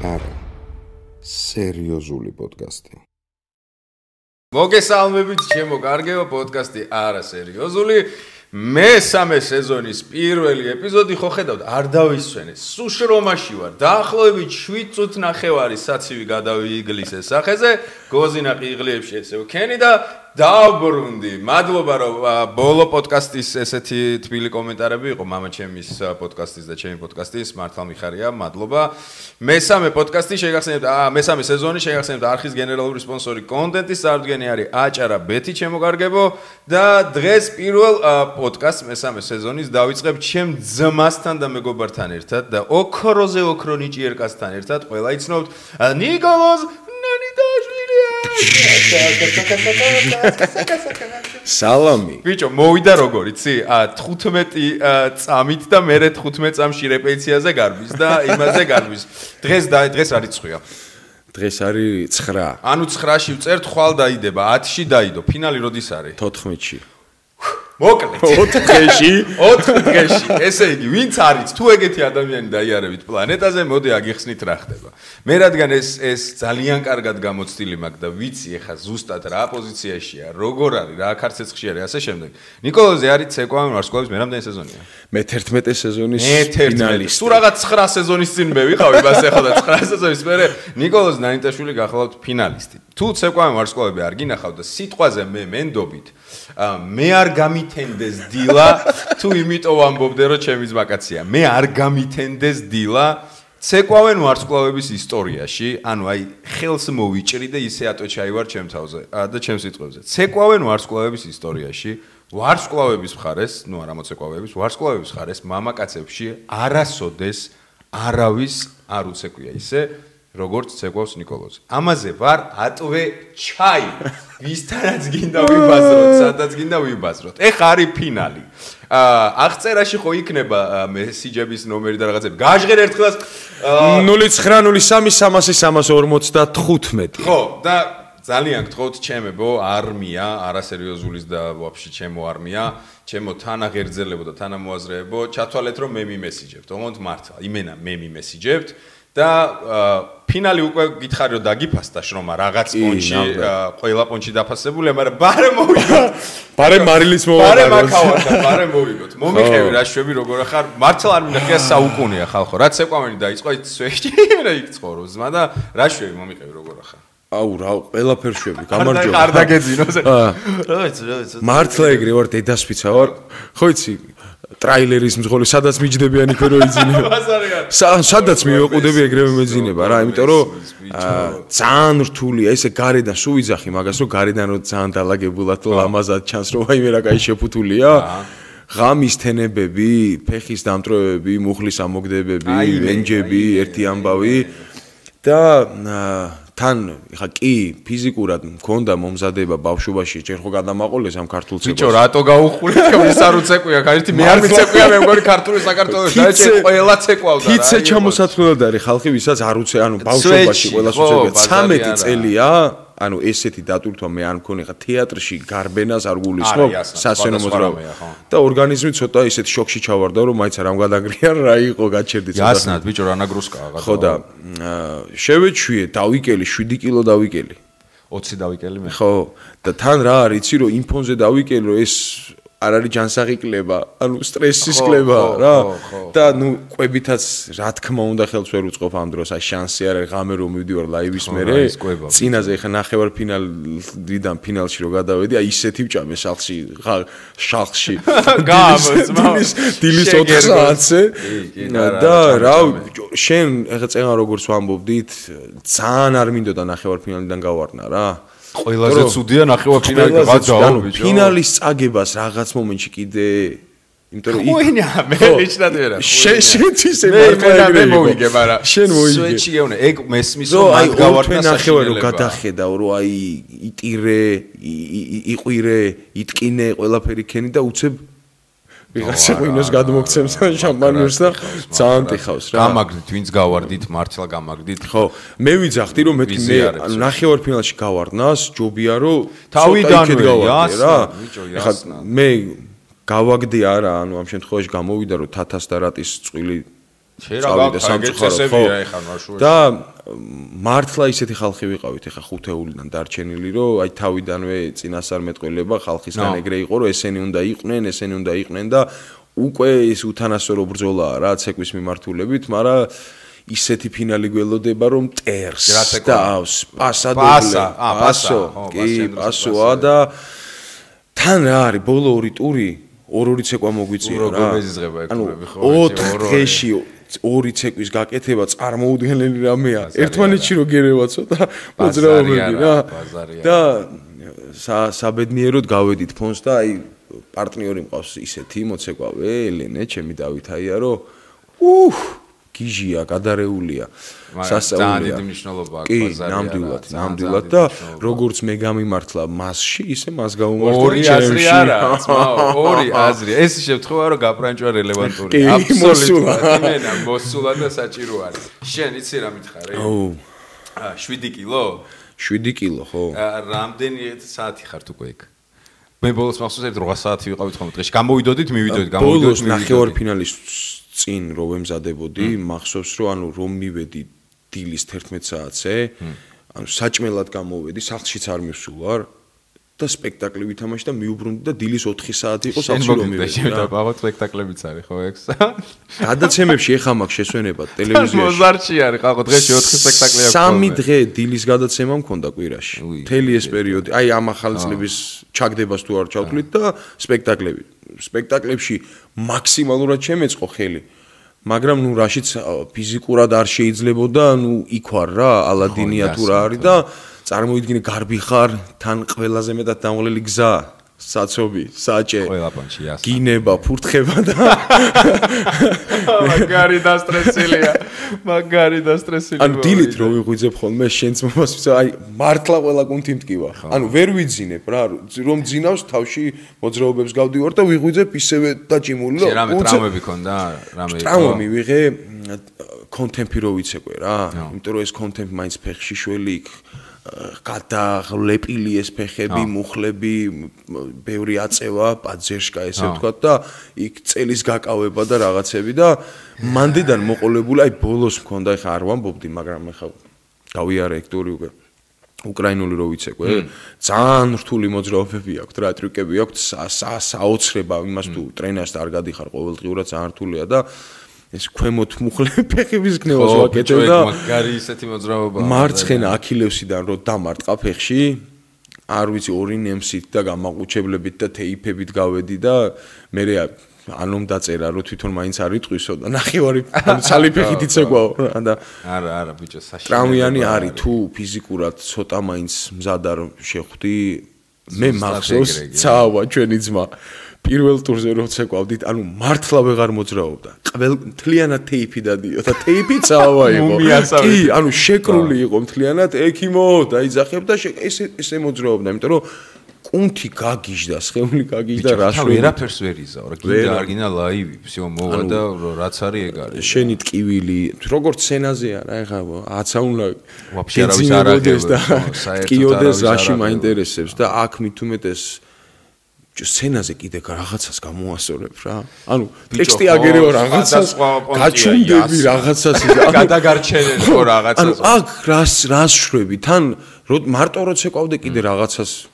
არა სერიოზული პოდკასტი. მოგესალმებით ჩემო კარგეო პოდკასტი არა სერიოზული მესამე სეზონის პირველი ეპიზოდი ხო ხედავთ არ დავისვენე სუშრომაში ვარ დაახლოებით 7 წუთი ნახევარი საცივი გადავიიგლის ეს სახეზე გოზინაყი იღლიებში ესე ვქენი და დავბრუნდი მადლობა რომ ბოლო პოდკასტის ესეთი თბილი კომენტარები იყო მამა ჩემის პოდკასტის და ჩემი პოდკასტის მართლა მიხარია მადლობა მესამე პოდკასტი შეგახსენებთ მესამე სეზონი შეგახსენებთ არხის გენერალური სპონსორი კონტენტის წარდგენი არის აჭარა ბეთი ჩემო კარგებო და დღეს პირველ პოდკასტს მესამე სეზონის დავიწყებ ჩემ ძმასთან და მეგობართან ერთად და ოქროზე ოქრო ნიჭიერკასთან ერთად ყველა იცნობთ ნიკოლოზ სალამი ბიჭო მოვიდა როგორ იცი 15 წამით და მე 15 წამში რეპეტიციაზე გარბის და იმაზე გარბის დღეს არის ცხვია დღეს არის 9 ანუ 9-ში ვწერთ ხვალ დაიდება 10-ში დაიდო ფინალი როდის არის 14-ში მოკლედ 4 დღეში ესე იგი ვინც არის თუ ეგეთი ადამიანი დაიარებით პლანეტაზე მოდი აგიხსნით რა ხდება მე რადგან ეს ძალიან კარგად გამოცდილი მაქვს და ვიცი ეხა ზუსტად რა პოზიციაშია როგორ არის რა ქარცეცხში არის ასე შემდეგ ნიკოლოზი არის ცეკვავენ ვარსკვლავის მე რამდენი სეზონია მე 11 სეზონის ფინალისტი თუ რაღაც 9 სეზონის წინ მე ვიყავი ბას ეხლა და 9 სეზონის მერე ნიკოლოზ ნანიტაშვილი გახლავთ ფინალისტი თუ ცეკვავენ ვარსკვლავები არ გინახავთ და სიტყვაზე მე მენდობით მე არ გამითენდეს დილა თუ იმიტომ ვამბობდე რომ ჩემი ზმაკაცია მე არ გამითენდეს დილა ცეკვავენ ვარსკვლავების ისტორიაში ანუ აი ხელს მოვიჭრი და ისე ატოჩაივარ ჩემ თავზე და ჩემ სიტყვებზე ცეკვავენ ვარსკვლავების ისტორიაში ვარსკვლავების მხარეს ნუ არა მოცეკვავების ვარსკვლავების მხარეს მამაკაცებში არასოდეს არავის არ უცეკვია ისე როგორც ცეკვავს ნიკოლოზი. ამაზე ვარ ატვე ჩაი. ვისთანაც გინდა ვიბაზროთ, სადაც გინდა ვიბაზროთ. ეხა არის ფინალი. აღწერაში ხო იქნება მესიჯების ნომერი და რაღაცები. გაჟღერ ერთხელაც 0993000355. ხო, და ძალიან გთხოვთ ჩემებო არმია, არასერიოზულის და ვაფშე ჩემო არმია, ჩემო თანაღერძელებო და თანამოაზრეებო, ჩათვალეთ რომ მე მიმესიჯებთ. ოღონდ მართლა, იმენა მე მიმესიჯებთ. და ფინალი უკვე გითხარი რომ დაგიფასდა შრომა რაღაც პონჩი ყველა პონჩი დაფასებულია მაგრამ ბარე მოვიგოთ ბარე მარილის ბარე მოვიგოთ მომიყევი რა შვები როგორ ახარ მართლა არ მინახია საუკუნეა ხალხო რაც ეკვამენი დაიწყო ის სვეში რა იქცხოვრო ზმა და რა შვები მომიყევი როგორ ახარ აუ რა ყველაფერ შვები გამარჯობა არ დაგეძინოს რა მართლა ეგრე ვარ დედასფიცა ვარ ხო იცი ტრაილერის მძღოლი სადაც მიჯდებიან იქ რო იძინება სადაც მივეყუდები ეგრევე მეძინება რა იმიტომ რომ ძალიან რთულია ესე გარედან სულ ვიძახი მაგას რომ გარედან რო ძალიან დალაგებულად ლამაზად ჩანს რომ აი მე რა კაი შეფუთულია ღამის თენებები ფეხის დამტროებები მუხლის ამოგდებები ვენჯები ერთი ამბავი და თან ხა კი ფიზიკურად მქონდა მომზადება ბავშვობაში ჯერ ხო გადამაყოლეს ამ ქართულ ცეკვას ბიჭო რატო გაუხურეთ ის არ უცეკვია ერთი მე არ მიცეკვია მე მგონი ქართული საქართველოს დაიჭე ყველა ცეკვავდა რა თიცე ჩამოსათვლელად არის ხალხი ვისაც არ უცე ანუ ბავშვობაში ყველას უცეკვია 13 წელია ანუ ესეთი დატვირთვა მე არ მქონი ხა თეატრში გარბენას არ გულისხმობ სასცენო მოძრაობა და ორგანიზმი ცოტა ისეთ შოკში ჩავარდა რომ მაინც არ ამგვადაგრიან რა იყო გაჩერდი ცოტა იასნად ბიჭო რა ნაგრუსკაა ხო და შევეჩვიე დავიკელი 7 კილო დავიკელი 20 დავიკელი მე ხო და თან რა არის იცი რომ იმ ფონზე დავიკელი რომ ეს არ არის ჯანსაღი კლება, ანუ სტრესის კლება რა. და ნუ ყვებითაც რა თქმა უნდა ხელს ვერ უწყობ ამ დროს, აი შანსი არ არის ღამე რომ მივდივარ ლაივის მერე. წინაზე ხა ნახევარ ფინალიდან ფინალში რო გადავედი, აი ისეთი ვჭამე შალხში. დილის 4 საათზე. და რა შენ ხა წეღან როგორც ვამბობდით, ძალიან არ მინდოდა ნახევარ ფინალიდან გავარდნა რა. ყველაზე ცუდია ნახევარფინალი გადააო ბიჭო. ფინალის წაგებას რაღაც მომენტში კიდე იმიტომ რომ ხუენა მე ნიშნად ვერა. შეთვის ემართლა მე მოვიგე, მაგრამ შენ მოიგე. სვეჩი გეუნე, ეგ მესმის რომ მაგ გავარდნა ნახევარ რომ გადახედავ რომ აი იტირე, იყვირე, იტკინე ყველაფერი ქენი და უცებ ვიღაცა ღვინოს გადმოგცემს შამპანურს და ძალიან ტიხავს რა. გამაგდით, ვინც გავარდით, მართლა გამაგდით. ხო, მე ვიძახდი რომ მე ნახევარ ფინალში გავარდნას, ჯობია რომ თავიდანვე რა. მე გავაგდი არა, ანუ ამ შემთხვევაში გამოვიდა რომ თათას და რატის წვილი წავიდა სამწუხაროდ ხო და მართლა ისეთი ხალხი ვიყავით ეხა ხუთეულიდან დარჩენილი რომ აი თავიდანვე წინასწარმეტყველება ხალხისგან ეგრე იყო რომ ესენი უნდა იყვნენ და უკვე ის უთანასწორო ბრძოლაა რა ცეკვის მიმართულებით მაგრამ ისეთი ფინალი გველოდება რომ ტერს და პასოა და თან რა არის ბოლო ორი ტური ორი ცეკვა მოგვიწია რა ანუ 4 დღეში ორი ცეკვის გაკეთება წარმოუდგენელი რამეა ერთმანეთში რო გერევა ცოტა მოძრაობები რა და საბედნიეროდ გავედით ფონს და აი პარტნიორი მყავს ისეთი მოცეკვავე ელენე ჩემი დავითაია რომ გიჟია გადარეულია სასწაულია ძალიან მნიშვნელობა აქვს ბაზარია ნამდვილად და როგორც მე გამიმართლა მასში ისე მას გამომართლა ორი აზრი არა ორი აზრი ეს შემთხვევა რომ გაპრანჭვა რელევანტურია აბსოლუტურად მოსულა და საჭირო არის შენ იცი რა მითხარი 7 კილო 7 კილო ხო რამდენი საათი ხართ უკვე იქ მე ბოლოს მახსოვს 8 საათი ვიყავით ხოლმე დღეში გამოვიდოდით ბოლოს ნახევარ ფინალის წინ რო ვემზადებოდი მახსოვს რომ რომ მივედი დილის 11 საათზე ანუ საჭმელად გამოვედი სახლშიც არ მივსულვარ და სპექტაკლი ვითამაშე და მიუბრუნდი და დილის 4 საათი იყო სახლში რომ მივედი და ბაღოთ სპექტაკლებიც არის ხო ეგ გადაცემებში ეხა მაქვს შესვენება ტელევიზიაში მოზარჩი არის ხალხო დღეში 4 სპექტაკლი აქვს 3 დღე დილის გადაცემა მქონდა კვირაში მთელი ეს პერიოდი აი ამ ახალი წლების ჩაგდებას თუ არ ჩავთვლით და სპექტაკლებში მაქსიმალურად შემეწყო ხელი მაგრამ ნუ რაშიც ფიზიკურად არ შეიძლებოდა ნუ იქ ვარ რა ალადინია თუ რა არის და წარმოიდგინე გარბი ხარ თან ყველაზე მეტად დამღლელი გზა საცობი საჭე გინება ფურთხება და მაგარი და სტრესილია ან დილით რო ვიღვიძებ ხოლმე შენც მომას აი მართლა ყველა კუნთი მტკივა ანუ ვერ ვიძინებ რა რომ ძინავს თავში მოძრაობებს გავდივარ და ვიღვიძებ ისევე დაჭიმული რომ რამე ტრაუმები ქონდა რამე ტრაუმა მივიღე კონტემპი რო ვიცეკვე რა იმიტომ რომ ეს კონტემპი მაინც ფეხში შველი იქ გადაღლეპილი ეს ფეხები, მუხლები, ბევრი აწევა, პაძერშკა ესე ვთქვათ და იქ წელის გაკავება და რაღაცები და მანდედან მოყოლებული, აი ბოლოს მქონდა, ეხა არ ვამბობდი, მაგრამ ეხა გავიარე ეგ ტური უკვე უკრაინული რო ვიცეკვე, ძალიან რთული მოძრაობები აქვს, რა ტრიკები აქვს, საოცრება იმას თუ ტრენერს არ გადიხარ ყოველდღიურად ძალიან რთულია და ეს ქვემოთ მუხლები ფეხების გნევას ვაკეთებ და მაგარი ისეთი მოძრაობაა მარცხენა აქილევსიდან რო დამარტყა ფეხში არ ვიცი ორი ნემსით და გამაყუჩებლებით და თეიფებით გავედი და მე ანომ დაწერა რომ თვითონ მაინც არ იტყვისო და ნახევარი ცალიფეხით იცეკვაო და არა ბიჭო საშინელი ტრამვიანი არის თუ ფიზიკურად ცოტა მაინც მზად არ შეხვდი მე მახსოვს ცავა ჩვენი ძმა პირველ ტურზე რო ცეკვავდით, ანუ მართლა ვეღარ მოძრაობდა. მთლიანად თეიფი დადიოდა. თეიფი წავა იყო. კი, ანუ შეკრული იყო მთლიანად, ექიმო, დაიძახებ და ესე მოძრაობდა, იმიტომ რომ კუნთი გაგიჟდა, სხეული გაგიჟდა, რას ვერაფერს ვერ იზაო, რა კიდე არგინა ლაივი, всё მოვა და რაც არის ეგ არის. შენი ტკივილი, როგორც სცენაზე არა, ეხა აცა უნდა ვაფშე არავის არ აღებს და ტკიოდეს რაში მაინტერესებს და აქ მithumetes სცენაზე კიდე რაღაცას გამოასწორებ რა. ანუ ტექსტი აგერევა რაღაცას, გაჩუნდები რაღაცას და გადაგარჩენე ხო რაღაცას. ანუ აქ რას შვები? თან მარტო რო ცეკვავდე კიდე რაღაცას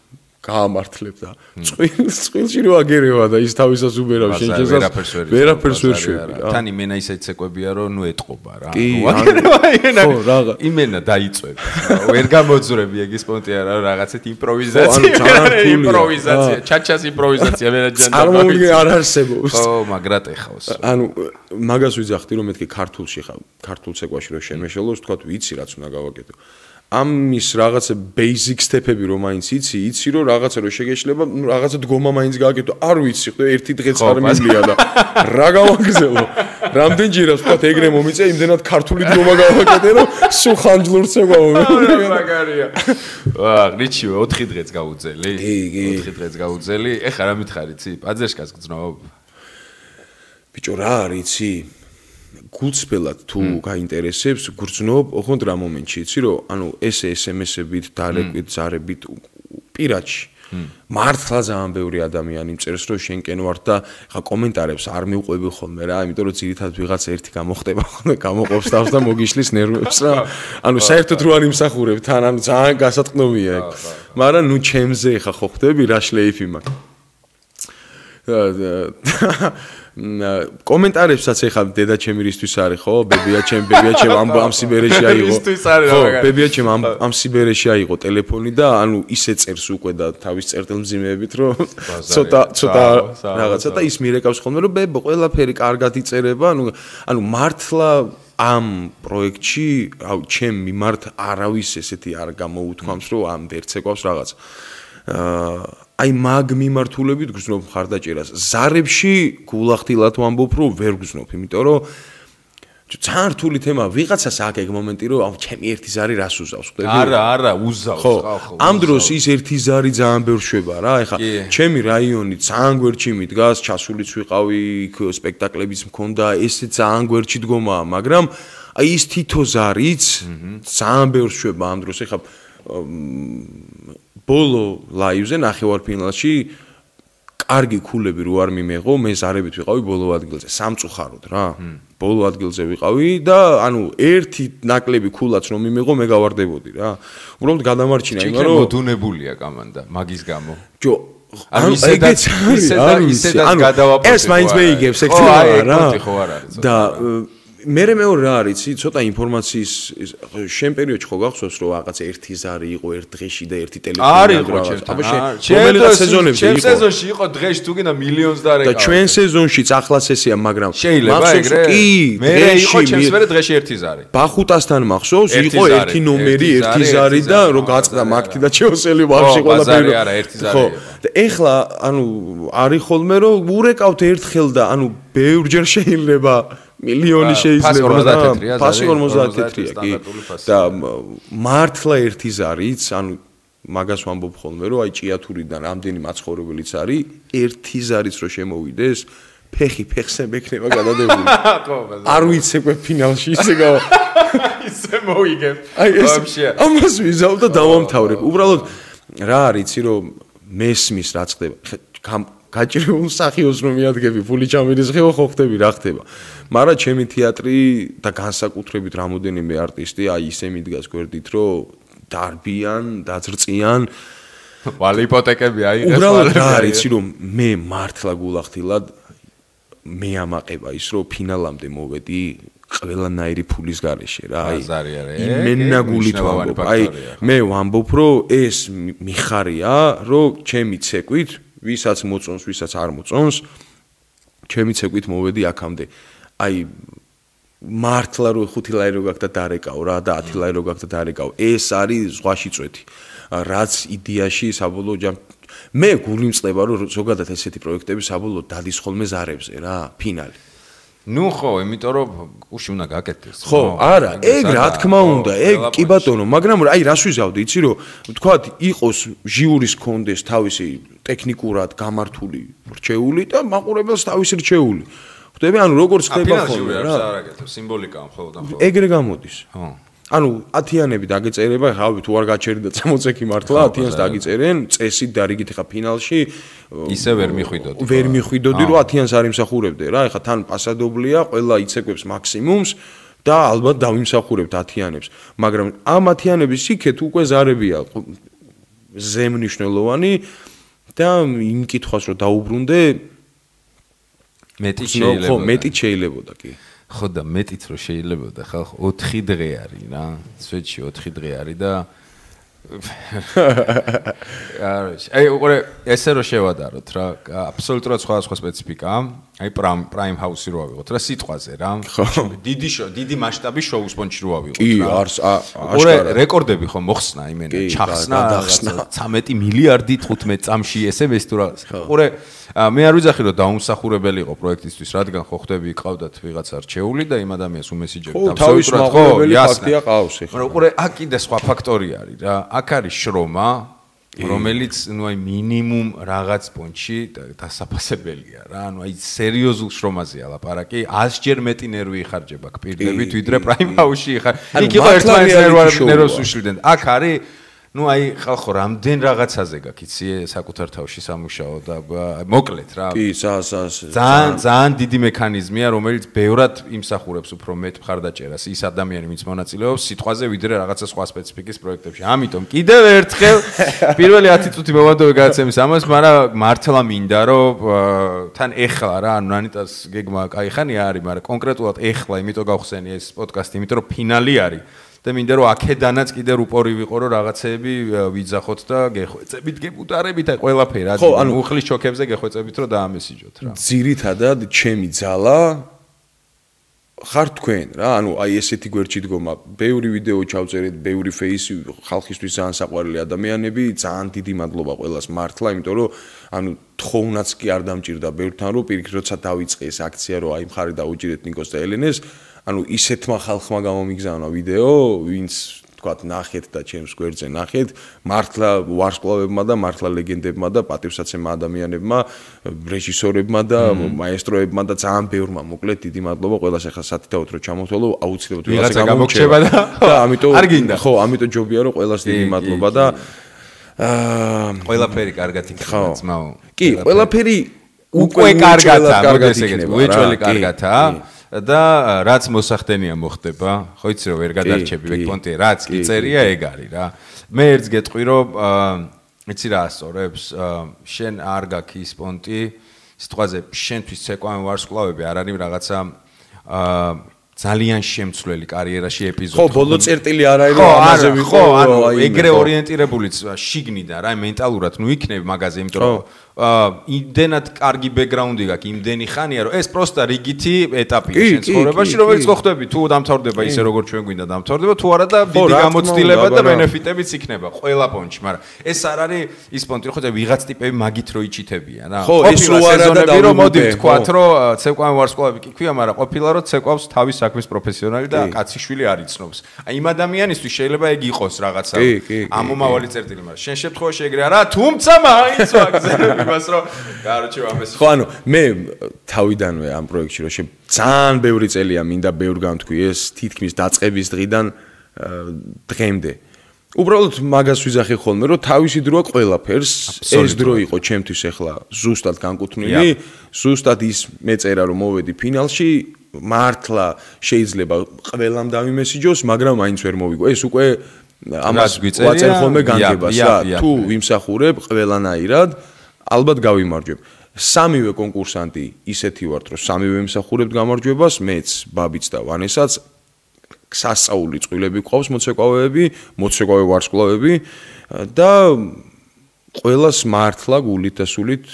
გაამართლებ და წყვილში რო აგერევა და ის თავისას უბერავ შენ შესაძლოა ვერაფერს ვერ შვები რა. თან იმენა ისეთ ცეკვებია რომ ნუ ეტყობა რა. ხო რაღა იმენა დაიწვევ. ვერ გამოძვრები ეგ სპონტია რა რაღაცეთ იმპროვიზაცია, ჩაჩას იმპროვიზაცია მენაჯანდა. წარმოუდგენ არ არსებობს. ხო, მაგრად ეხავს. ანუ მაგას ვიძახდი რომ მეთქი ქართულში ხარ, ქართულ ცეკვაში რო შემეშელოს, თქვა ვიცი რაც უნდა გავაკეთო. ამის რაღაცა basic step-ები რომ მაინც იცი რომ რაღაცა რო შეგეშლება, რაღაცა დგომა მაინც გააკეთო. არ ვიცი, ხო, ერთი დღეც არ მივია და რა გავაგზელო. რამდენჯერაც ვთქვათ, ეგრე მომიწე, იმდენად ქართული დგომა გავაკეთე, რომ სულ ხანჯლურს ეგვაო. მაგარია. ვაა, რიჩივე 4 დღეც გაუძელი. 4 დღეც გაუძელი. ეხლა რა მითხარი, ცი? პაძერშკას გძნობ. ბიჭო, რა არის, იცი? გულწრფელად თუ გაინტერესებს, გრძნობ, ოღონდ რა მომენტში იცი რომ ანუ ეს SMS-ებით, დარეკვით, ზარებით პირადში. მართლა ძალიან ბევრი ადამიანი მწერს რომ შენკენ ვარ და ხა კომენტარებს არ მივყვები ხოლმე რა, იმიტომ რომ ძირითადად ვიღაც ერთი გამოხდება ხოლმე, გამოყოფს თავს და მოგიშლის ნერვებს რა. ანუ საერთოდ რო არ იმსახურებ თან, ანუ ძალიან გასატყნობია ეგ. მაგრამ ნუ ჩემზე ხა ხო ხდები რა შლეიფი მაქვს. კომენტარებსაც ეხლა დედა ჩემირისთვის არის ხო? ბებია ჩემ ამ სიბერეში აიღო. ხო, ბებია ჩემ ამ სიბერეში აიღო ტელეფონი და ანუ ისე წერს უკვე და თავის წერტილმძიმეებით რომ ცოტა რაღაცა და ის მირეკავს ხოლმე რომ ბებო ყველაფერი კარგად იწერება, ანუ მართლა ამ პროექტში ჩემ მიმართ არავის ესეთი არ გამოუთქვამს რომ ამ ვერცეკვავს რაღაც. აი მაგ მიმართულებით გრძნობ მხარდაჭერას. ზარებში გულახდილად ვამბობ, რომ ვერ გრძნობ, იმიტომ რომ ძალიან რთული თემაა. ვიღაცას აქვს ეგ მომენტი, რომ ჩემი ერთი ზარი რას უზავს, ხვდები? არა, უზავს, ხო. ამ დროს ის ერთი ზარი ძალიან ბევრ შვება რა. ეხლა ჩემი რაიონი ძალიან გვერდში მიდგას, ჩასულიც ვიყავი, იქ სპექტაკლებიც მქონდა, ესე ძალიან გვერდში დგომაა, მაგრამ აი ის თითო ზარიც ძალიან ბევრ შვება ამ დროს. ეხლა ბოლო ლაივზე ნახევარფინალში კარგი ქულები რო არ მიმეღო, მე ზარებით ვიყავი ბოლო ადგილზე, სამწუხაროდ რა. ბოლო ადგილზე ვიყავი და ანუ ერთი ნაკლები ქულაც რომ მიმეღო, მე გავარდებოდი რა. უბრალოდ გადამარჩინა იმან რომ მოდუნებულია კამანდა მაგის გამო. ჯო ანუ ისედაც გადავაპროტე. ეს მაინც მეიგებს ეგ რა. და მეორე რა არის, ცოტა ინფორმაციის შენ პერიოდში ხო გახსოვს რომ რაღაც ერთი ზარი იყო ერთ დღეში და ერთი ტელეფონი არის ხო ჩემთან სეზონებში იყო. ჩემ სეზონში იყო დღეში თუ გინდა მილიონს და და ჩვენ სეზონშიც ახლაც ესეა, მაგრამ შეიძლება ეგრე? მე იყო ჩემს მერე დღეში ერთი ზარი. ბახუტასთან მახსოვს იყო ერთი ნომერი, ერთი ზარი და რო გაწყდა მაგთი და ჩეოსელი ვაფშე ყველაფერი. არა, ერთი ზარი იყო. და ეხლა ანუ არის ხოლმე რომ ურეკავთ ერთხელ და ანუ ბევრჯერ შეიძლება მილიონი შეიძლება ფასი 54-ია კი და მართლა ერთი ზარიც ანუ მაგას ვამბობ ხოლმე რომ აი ჭიათურიდან რამდენი მაცხოვრებელიც არის ერთი ზარიც რო შემოვიდეს ფეხი ფეხზე მექნება გადადებული არ ვიცეკვე ფინალში ისე ისე მოიგებ ვაფშე ამას ვიზავ და დავამთავრებ უბრალოდ რა არის იცი რომ მესმის რა ხდება გაჭირებულ მსახიობს რომ მიადგები ფული ჩამირისხეო ხო ხდები რა ხდება მაგრამ ჩემი თეატრი და განსაკუთრებით რამოდენიმე არტისტი აი ისე მიდგას გვერდით რომ დარბიან დაძრწიან ვალე იპოთეკები აიღეს უბრალოდ რა არის იცი რომ მე მართლა გულახდილად მე ამაყება ის რომ ფინალამდე მოვედი ყველანაირი ფულის გარეშე რა აი იმენაგულით ვამბობ აი მე ვამბობ რომ ეს მიხარია რომ ჩემი ცეკვით ვისაც მოწონს, ვისაც არ მოწონს, ჩემი ცეკვით მოვედი აქამდე. აი მართლა რო 5 ლარი რო გაქვს და დარეკავ რა და 10 ლარი რო გაქვს და დარეკავ. ეს არის ზღვაში წვეთი. რაც იდეაში საბოლოო მე გული მწყება რომ ზოგადად ესეთი პროექტები საბოლოო დადის ხოლმე ზარებზე რა, ფინალი. ნუ ხო, იმიტომ რომ გუში უნდა გაკეთდეს. ხო, არა, ეგ რა თქმა უნდა, ეგ კი ბატონო, მაგრამ აი რას ვიზავდი, იცი რომ თქვათ იყოს ჟიურის კონდეს თავისი ტექნიკურად გამართული რჩეული და მაყურებელს თავისი რჩეული. ხვდები, ანუ როგორც ხდება ხოლმე რა. სიმბოლიკა მხოლოდ და მხოლოდ. ეგრე გამოდის. ხო. ანუ 10-იანები დაგეწერება, ხავი თუ არ გაჩერდა 60 მართლა 10-იანს დაგეწერენ, წესით და რიგით ხა ფინალში ისე ვერ მიხვიდოდი. ვერ მიხვიდოდი, რომ 10-იანს არ იმსახურებდე რა, ეხა თან პასადობლია, ყველა იცეკვებს მაქსიმუმს და ალბათ დავიმსახურებთ 10-იანებს. მაგრამ ამ 10-იანების იქეთ უკვე ზარებია ზემნიშნელოვანი და იმ კითხვას რომ დაუბრუნდე მეტი შეიძლება. ხო, მეტი შეიძლებოდა კი. ხო და მეტიც რო შეიძლებოდა ხალხ 4 დღე არის რა სვეტში 4 დღე არის და აი უყურე ესე რო შევადაროთ რა აბსოლუტურად სხვა სპეციფიკაა აი პრაიმ ჰაუსი რო ავიღოთ რა სიტყვაზე რა დიდი მასშტაბის შოუს პონჩი რო ავიღოთ კი აშკარა რეკორდები ხო მოხსნა იმენა ჩახსნა 13 მილიარდი 15 წამში SMS თუ რა უყურე მე არ ვიძახი რომ დაუმსახურებელი იყო პროექტისთვის რადგან ხო ხდები ყავდათ ვიღაცა რჩეული და იმ ადამიანს უმესიჯები აბსოლუტურად ხო ფაქტია ყავს ეხლა მაგრამ უყურე აქ კიდე სხვა ფაქტორი არის რა აქ არის შრომა რომელიც ნუ აი მინიმუმ რაღაც პონჩი დასაფასებელია რა ანუ აი სერიოზულ შრომაზეა ლაპარაკი 100 ჯერ მეტი ნერვი იხარჯება აქ პირდებით ვიდრე პრაიმ ჰაუსში იქ იყო ერთმანეთს ნერვს უშლიდნენ აქ არის ну აი ხალხო რამდენ რაღაცაზე გაკიცი საკუთარ თავში სამუშაო და მოკლედ რა კი ძალიან დიდი მექანიზმია რომელიც ბევრად იმსახურებს უფრო მეტ მხარდაჭერას ის ადამიანი ვინც მონაწილეობს სიტყვაზე ვიდრე რაღაცა სხვა სპეციფიკის პროექტებში ამიტომ კიდევ ერთხელ პირველი 10 წუთი მოვადოვე გადაცემის ამას მაგრამ მართლა მინდა რომ თან ეხლა რა ანუ ანიტას გეგმა კაი ხანია არის მაგრამ კონკრეტულად ეხლა იმიტომ გავხსენი ეს პოდკასტი იმიტომ რომ ფინალი არის და მინდა რომ აქედანაც კიდე რუპორი ვიყო რომ რაღაცეები ვიძახოთ და გეხვეწებით გებუტარებით აი ყველაფერი ხო ანუ უხლის ჩოქებზე გეხვეწებით რომ დაამესიჯოთ რა ძირითადად ჩემი ძალა ხარ თქვენ რა ანუ აი ესეთი გვერდში დგომა ბევრი ვიდეო ჩავწერეთ ბევრი ფეისი ხალხისთვის ძალიან საყვარელი ადამიანები ძალიან დიდი მადლობა ყველას მართლა იმიტომ რომ ანუ თხოვნაც კი არ დამჭირდა ბევრთან რომ პირიქით როცა დაიწყე ეს აქცია რომ აი მხარი დაუჭირეთ ნიკოს და ელენეს ანუ ისეთმა ხალხმა გამომიგზავნა ვიდეო, ვინც თქვათ ნახეთ და ჩემს გვერდზე ნახეთ, მართლა ვარსკვლავებმა და მართლა ლეგენდებმა და პატივსაცემა ადამიანებმა, რეჟისორებმა და მაესტროებმა და ძალიან ბევრმა მოკლედ დიდი მადლობა ყველას ახლა სათითაოდ რომ ჩამოთვალო, აუცილებლად ვიღაცა გამოგჩება და ამიტომ არ გინდა. ხო, ამიტომ ჯობია რომ ყველას დიდი მადლობა და ყველაფერი კარგად იქნება ძმაო. კი, ყველაფერი უკვე კარგადაა, მოდი ესე უეჭველი კარგადაა. და რაც მოსახდენია მოხდება, ხო იცი რომ ვერ გადარჩები ვეკპონტი, რაც კი წერია ეგ არის რა. მე ერთს გეტყვი რომ იცი რა ასწორებს, შენ არ გაქვს ის პონტი, სიტყვაზე შენთვის ცეკვავენ ვარსკვლავები არ არის რაღაცა ძალიან შემცვლელი კარიერაში ეპიზოდი. ხო, ბოლო წერტილი არ არის რომ ამაზე ვიყო, ანუ ეგრე ორიენტირებულიც შიგნიდან რა მენტალურად ნუ იქნები მაგაზე, იმიტომ რომ იმდენად კარგი ბექგრაუნდი გაქვს, იმდენი ხანია რომ ეს პროსტა რიგითი ეტაპია შენ ცხოვრებაში, რომელიც ხვდები თუ დამთავრდება ისე როგორც ჩვენ გვინდა დამთავრდება, თუ არა და დიდი გამოცდილება და ბენეფიტებიც იქნება ყველა პონჩი, მაგრამ ეს არ არის ის პონტი, ხო და ვიღაც ტიპები მაგით რო იჩითებიან რა. ხო, ეს რო არა და რომ მოდი ვთქვათ რომ ცეკვავენ ვარსკვლავები კი ქვია, მაგრამ ყოფილა რომ ცეკვავს თავის საქმის პროფესიონალი და კაციშვილი არ იცნობს. აი იმ ადამიანისთვის შეიძლება ეგ იყოს რაღაცა ამომავალი წერტილი, მაგრამ შენ შემთხვევაში ეგრე არა, თუმცა მაინც ვაგზავნებ იმას რომ კაროჩე ამეს. ხო, ანუ მე თავიდანვე ამ პროექტში რომ ძალიან ბევრი წელია მინდა ბევრ გამთქვი ეს თითქმის დაწყების დღიდან დღემდე. უბრალოდ მაგას ვიზახე ხოლმე რომ თავისი დროა ყველაფერს ეს დრო იყო ჩემთვის ახლა ზუსტად განკუთვნილი, ზუსტად ის მეწერა რომ მოვედი ფინალში მართლა შეიძლება ყველამ დავიმესიჯოს, მაგრამ მაინც ვერ მოვიგო. ეს უკვე ამას ვაწერ ხოლმე განგებას რა. თუ ვიმსახურებ ყველანაირად, ალბათ გავიმარჯვებ. სამივე კონკურსანტი ისეთი ვართ, რომ სამივე ვიმსახურებთ გამარჯვებას, მეც, ბაბიც და ვანესაც. სასწაული წყვილები გვყავს მოცეკვავეები, მოცეკვავე ვარსკვლავები და ყველას მართლა გულით და სულით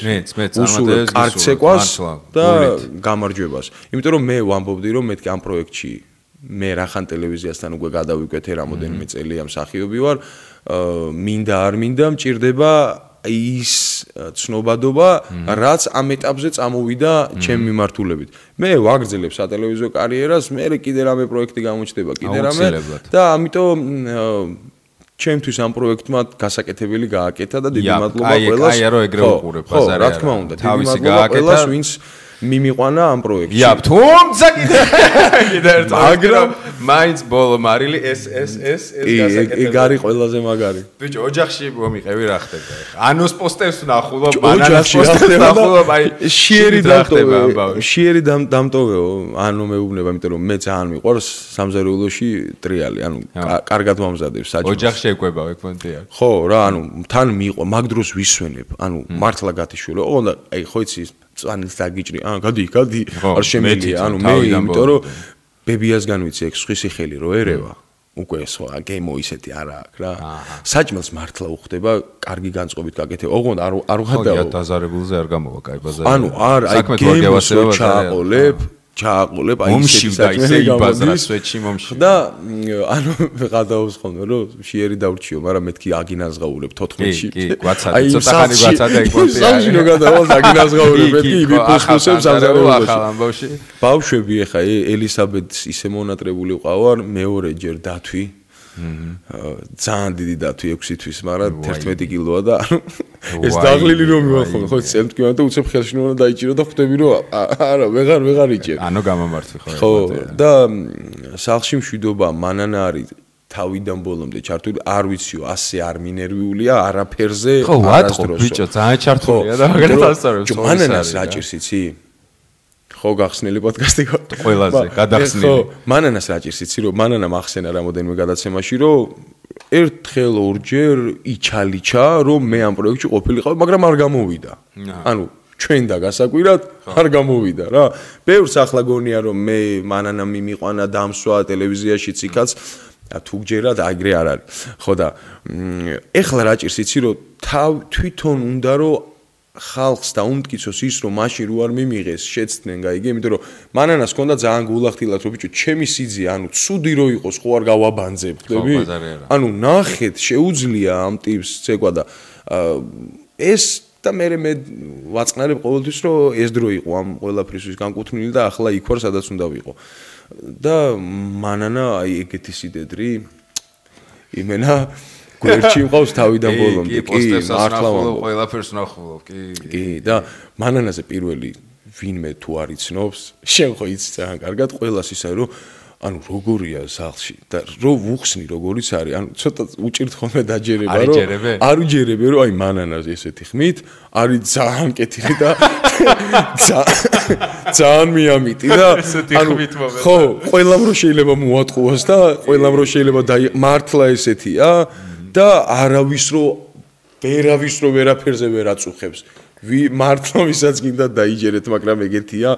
უსურვებ კარგ ცეკვას და გამარჯვებას. იმიტომ რომ მე ვამბობდი რომ მეთქი ამ პროექტში მე რახან ტელევიზიასთან უკვე გადავიკვეთე რამოდენიმე წელი ამ მსახიობი ვარ, მინდა არ მინდა მჭირდება ის ცნობადობა, რაც ამ ეტაპზე წამოვიდა ჩემ მიმართულებით. მე ვაგრძელებ სატელევიზიო კარიერას, მე კიდე რამე პროექტი გამოჩნდება, კიდე რამე და ამიტომ ჩემთვის ამ პროექტმა გასაკეთებელი გააკეთა და დიდი მადლობა ყველას. აი რა ეგრე უყურებ ბაზარი. რა თქმა უნდა, დიდი მადლობა ყველას, ვინც მიმიყვანა ამ პროექტში. ია, თუმცა კიდე ერთ მაგრამ მაინც ბოლო მარილი ეს გასაკეთებელი. ეგ არის ყველაზე მაგარი. ბიჭო, ოჯახში მომიყევი რა ხდება ახლა. ანოს პოსტერს ნახულობ, ბანანას პოსტერს ნახულობ, აი შიერი დამტოვეო, ანუ მეუბნება, იმიტომ რომ მე ძალიან მიყვარს სამზარეულოში ტრიალი, ანუ კარგად მომზადებს საჭმელს. ოჯახში ეკვება ვეკონტია. ხო, რა, ანუ თან მიყვა, მაგ დროს ვისვენებ, ანუ მართლა გათიშულე. ოღონდ აი ხო იცი წვანილს დაგიჭრი, გადი, არ შემიძლია, ანუ მე იმიტომ რომ ბებიასგან ვიცი ეგ სხვისი ხელი რო ერევა, უკვე სხვა გემო ისეთი არა აქვს რა. საჭმელს მართლა უხდება, კარგი განწყობით გაკეთე. ოღონდ არ ვღადაო. ხო, დაზარებულზე არ გამოვა, კაი ბაზარი. ანუ არ, აი გემოს ჩააყოლებ, აი ისე იბაზრა სვეტში მომში. და ანუ ვღადაობს ხოლმე რომ შიერი დავრჩიო, მაგრამ მეთქი აგინაზღაურებ 14-ში. კი, გვაცადე, ცოტა ხანი გვაცადე ეგ პონტი. სამში რო გადავალ აგინაზღაურებ, მეთქი იბიფუსებს ამზარეულობაში. ბავშვები ახლა ელისაბედს ისე მონატრებული ყავარ, მეორეჯერ დათვი. ძალიან დიდი დათვი 6 თვის, მაგრამ 11 კილოა და ეს დაღლილი რომ მივახო, ხო წემთქვია და უცებ ხელში უნდა დაიჭირო და ხვდები რომ არა, ვეღარ იჭერ. ანუ გამომართვი ხო. ხო, და სახლში მშვიდობა, მანანა არის თავიდან ბოლომდე ჩართული, არ ვიციო, ასე არ მინერვიულია, არაფერზე, არასდროს. ხო, ბიჭო, ძალიან ჩართულია და მაგალითად ასწავლებს. მანანას რა ჭირს იცი? ხო, გახსნილი პოდკასტი ხო? ყველაზე გადახსნილი. ხო, მანანას რა ჭირს იცი, რომ მანანა ახსენა რამოდენიმე გადაცემაში, რომ ერთხელ ორჯერ იჩალიჩა, რომ მე ამ პროექტში ყოფილიყავ, მაგრამ არ გამოვიდა. ანუ ჩვენ და გასაკვირად არ გამოვიდა რა. ბევრს ახლა გონია რომ მე მანანა მიმიყვანა დამსვა ტელევიზიაშიც იქაც თუ გჯერად აგრე არ არის. ხო და ეხლა რა ჭირს იცი რომ თვითონ უნდა რომ ხალხს დაუმტკიცოს ის რომ მაშინ რო არ მიმიღეს შეცდნენ გაიგე იმიტომ რომ მანანას ჰქონდა ძალიან გულახდილად რომ ბიჭო ჩემი სიძე ანუ ცუდი რო იყოს ხო არ გავაბანძებ ხდები ანუ ნახეთ შეუძლია ამ ტიპს ცეკვა და ეს და მე ვაწყნარებ ყოველთვის რომ ეს დრო იყო ამ ყველაფრისთვის განკუთვნილი და ახლა იქ ვარ სადაც უნდა ვიყო და მანანა აი ეგეთი სიდედრი იმენა გვერდში მყავს თავიდან ბოლომდე კი მართლა ყველაფერს ნახულობ კი და მანანაზე პირველი ვინმე თუ არ იცნობს შენ ხო იცი ძალიან კარგად ყველას ისე რომ ანუ როგორია სახლში და რო ვუხსნი როგორიც არის ანუ ცოტა უჭირთ ხოლმე დაჯერება რომ არ უჯერებე რომ აი მანანას ესეთი ხმით არის ძალიან კეთილი და ძალიან მიამიტი და ანუ ხო ყველამ რო შეიძლება მოატყუოს და ყველამ რო შეიძლება მართლა ესეთია და არავის რო ვერაფერზე ვერ აწუხებს მართლა ვისაც გინდა დაიჯერეთ მაგრამ ეგეთია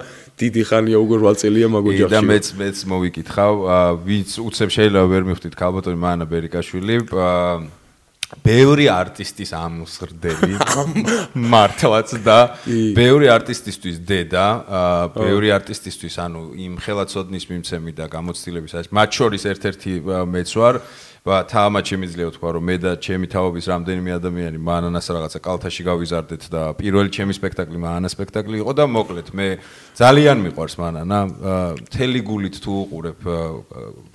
დიდი ხანია უკვე 8 წელია მაგოჯახში და მეც მოვიკითხავ ვინც უცებ შეიძლება ვერ მიხვდით ქალბატონი მანანა ბერიკაშვილი ბევრი არტისტის ამსრდელი მართლაც და ბევრი არტისტისთვის დედა ბევრი არტისტისთვის ანუ იმ ხელაცოდნის მიმცემი და გამოცდილების არის მათ შორის ერთ-ერთი მეც ვარ თამამად შემიძლია ვთქვა რომ მე და ჩემი თაობის რამდენიმე ადამიანი მანანას რაღაცა კალთაში გავიზარდეთ და პირველი ჩემი სპექტაკლი მანანა სპექტაკლი იყო და მოკლედ მე ძალიან მიყვარს მანანა მთელი გულით თუ უყურებ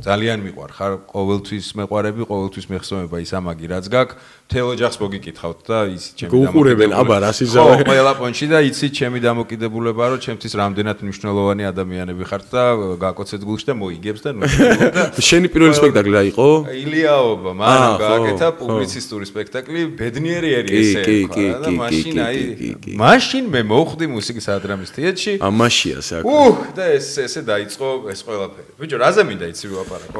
ძალიან მიყვარხარ ყოველთვის მეყვარები ყოველთვის მეხსოვნება ის ამაგი რაც გაქვს მთელ ოჯახს მოგიკითხავთ და ის ჩემი უყურებენ აბა რას იზავე ხო ყველა პონჩი და იცი ჩემი დამოკიდებულება რომ ჩემთვის რამდენად მნიშვნელოვანი ადამიანები ხართ და გაკოცეთ გულში და მოიგებს და შენი პირველი სპექტაკლი რა იყო ილიაობა მანამ გააკეთა პუბლიცისტური სპექტაკლი ბედნიერი ესე და მაშინ აი მაშინ მე მოვხვდი მუსიკის ადრამის თეატრში ამაშია საკ და ესე დაიწყო ეს ყველაფერი ბიჭო რაზე მინდა იცი ვაპარაკო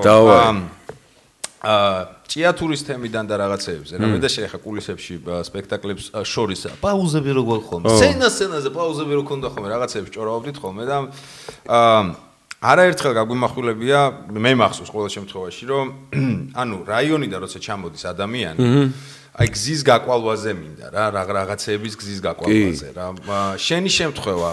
ჭიათურის თემიდან და რაღაცეებზე რა მე და შეხა კულისებში სპექტაკლებს შორის პაუზები როგორ ხოლმე სცენაზე პაუზები როგორ ქონდა ხოლმე რაღაცეებს ჭორავდით ხოლმე და არაერთხელ გაგვიმახვილებია მე მახსოვს ყოველ შემთხვევაში რომ ანუ რაიონიდან როცა ჩამოდის ადამიანი აი გზის გაკვალვაზე მინდა რა რაღაცეების გზის გაკვალვაზე რა შენი შემთხვევა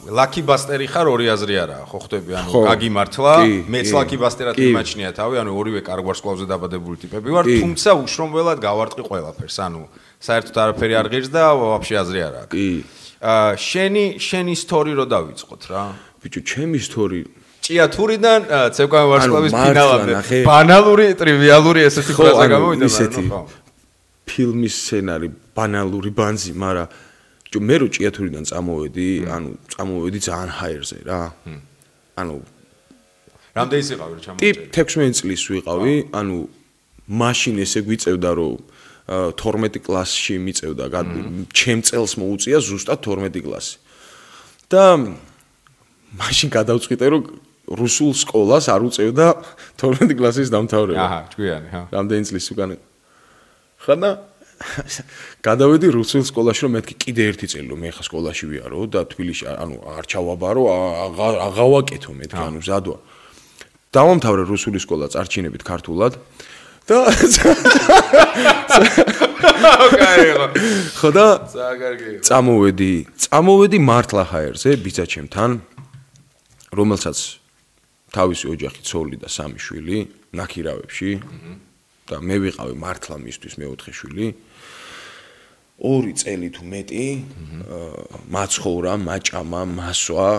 ლაკი ბასტერი ხარ ორი აზრი არაა ხო ხვდები ანუ გაგიმართლა მეც ლაკი ბასტერად მიმაჩნია თავი ანუ ორივე კარგ ვარსკვლავზე დაბადებული ტიპები ვარ თუმცა უშრომველად გავარტყი ყველაფერს ანუ საერთოდ არაფერი არ ღირს და ვაფშე აზრი არ აქვს შენი ისტორი რო დავიწყოთ რა ბიჭო ჩემი ისტორი ჭიათურიდან ცეკვავე ვარსკვლავის ფინალამდე ბანალური ტრივიალური ესეთი ფრაზა გამოვიდა ხო ფილმის სცენარი ბანალური ბანძი, მაგრამ მე რო ჭიათურიდან წამოვედი, ანუ წამოვედი ძალიან ჰაერზე რა. ანუ რამდენი იყავი რომ ჩამოვედი? 16 წლის ვიყავი, ანუ მაშინ ესე გვიწევდა რომ 12 კლასში მიწევდა, ჩემ წელს მოუწია ზუსტად 12 კლასი. და მაშინ გადავწყვიტე რომ რუსულ სკოლას არ უწევდა 12 კლასის დამთავრება. აჰა, ჭკვიანი, ხა. რამდენი წლის უკან ხანა გადავედი რუსულ სკოლაში რომ მეთქი კიდე ერთი წელი რომ მე ხა სკოლაში ვიარო და თბილისში ანუ არ ჩავაბარო აღავაკეთო მეთქი ანუ ზადვა დავამთავრე რუსული სკოლა წარჩინებით ქართულად და ხოდა წამოვედი მართლა ჰაერზე ბიძაჩემთან რომელსაც თავისი ოჯახი ცოლი და 3 შვილი ნაქირავებში და მე ვიყავი მართლა მისთვის მეოთხე შვილი 2 წელი თუ მეტი მაცხოვრა, მაჭამა, მასვა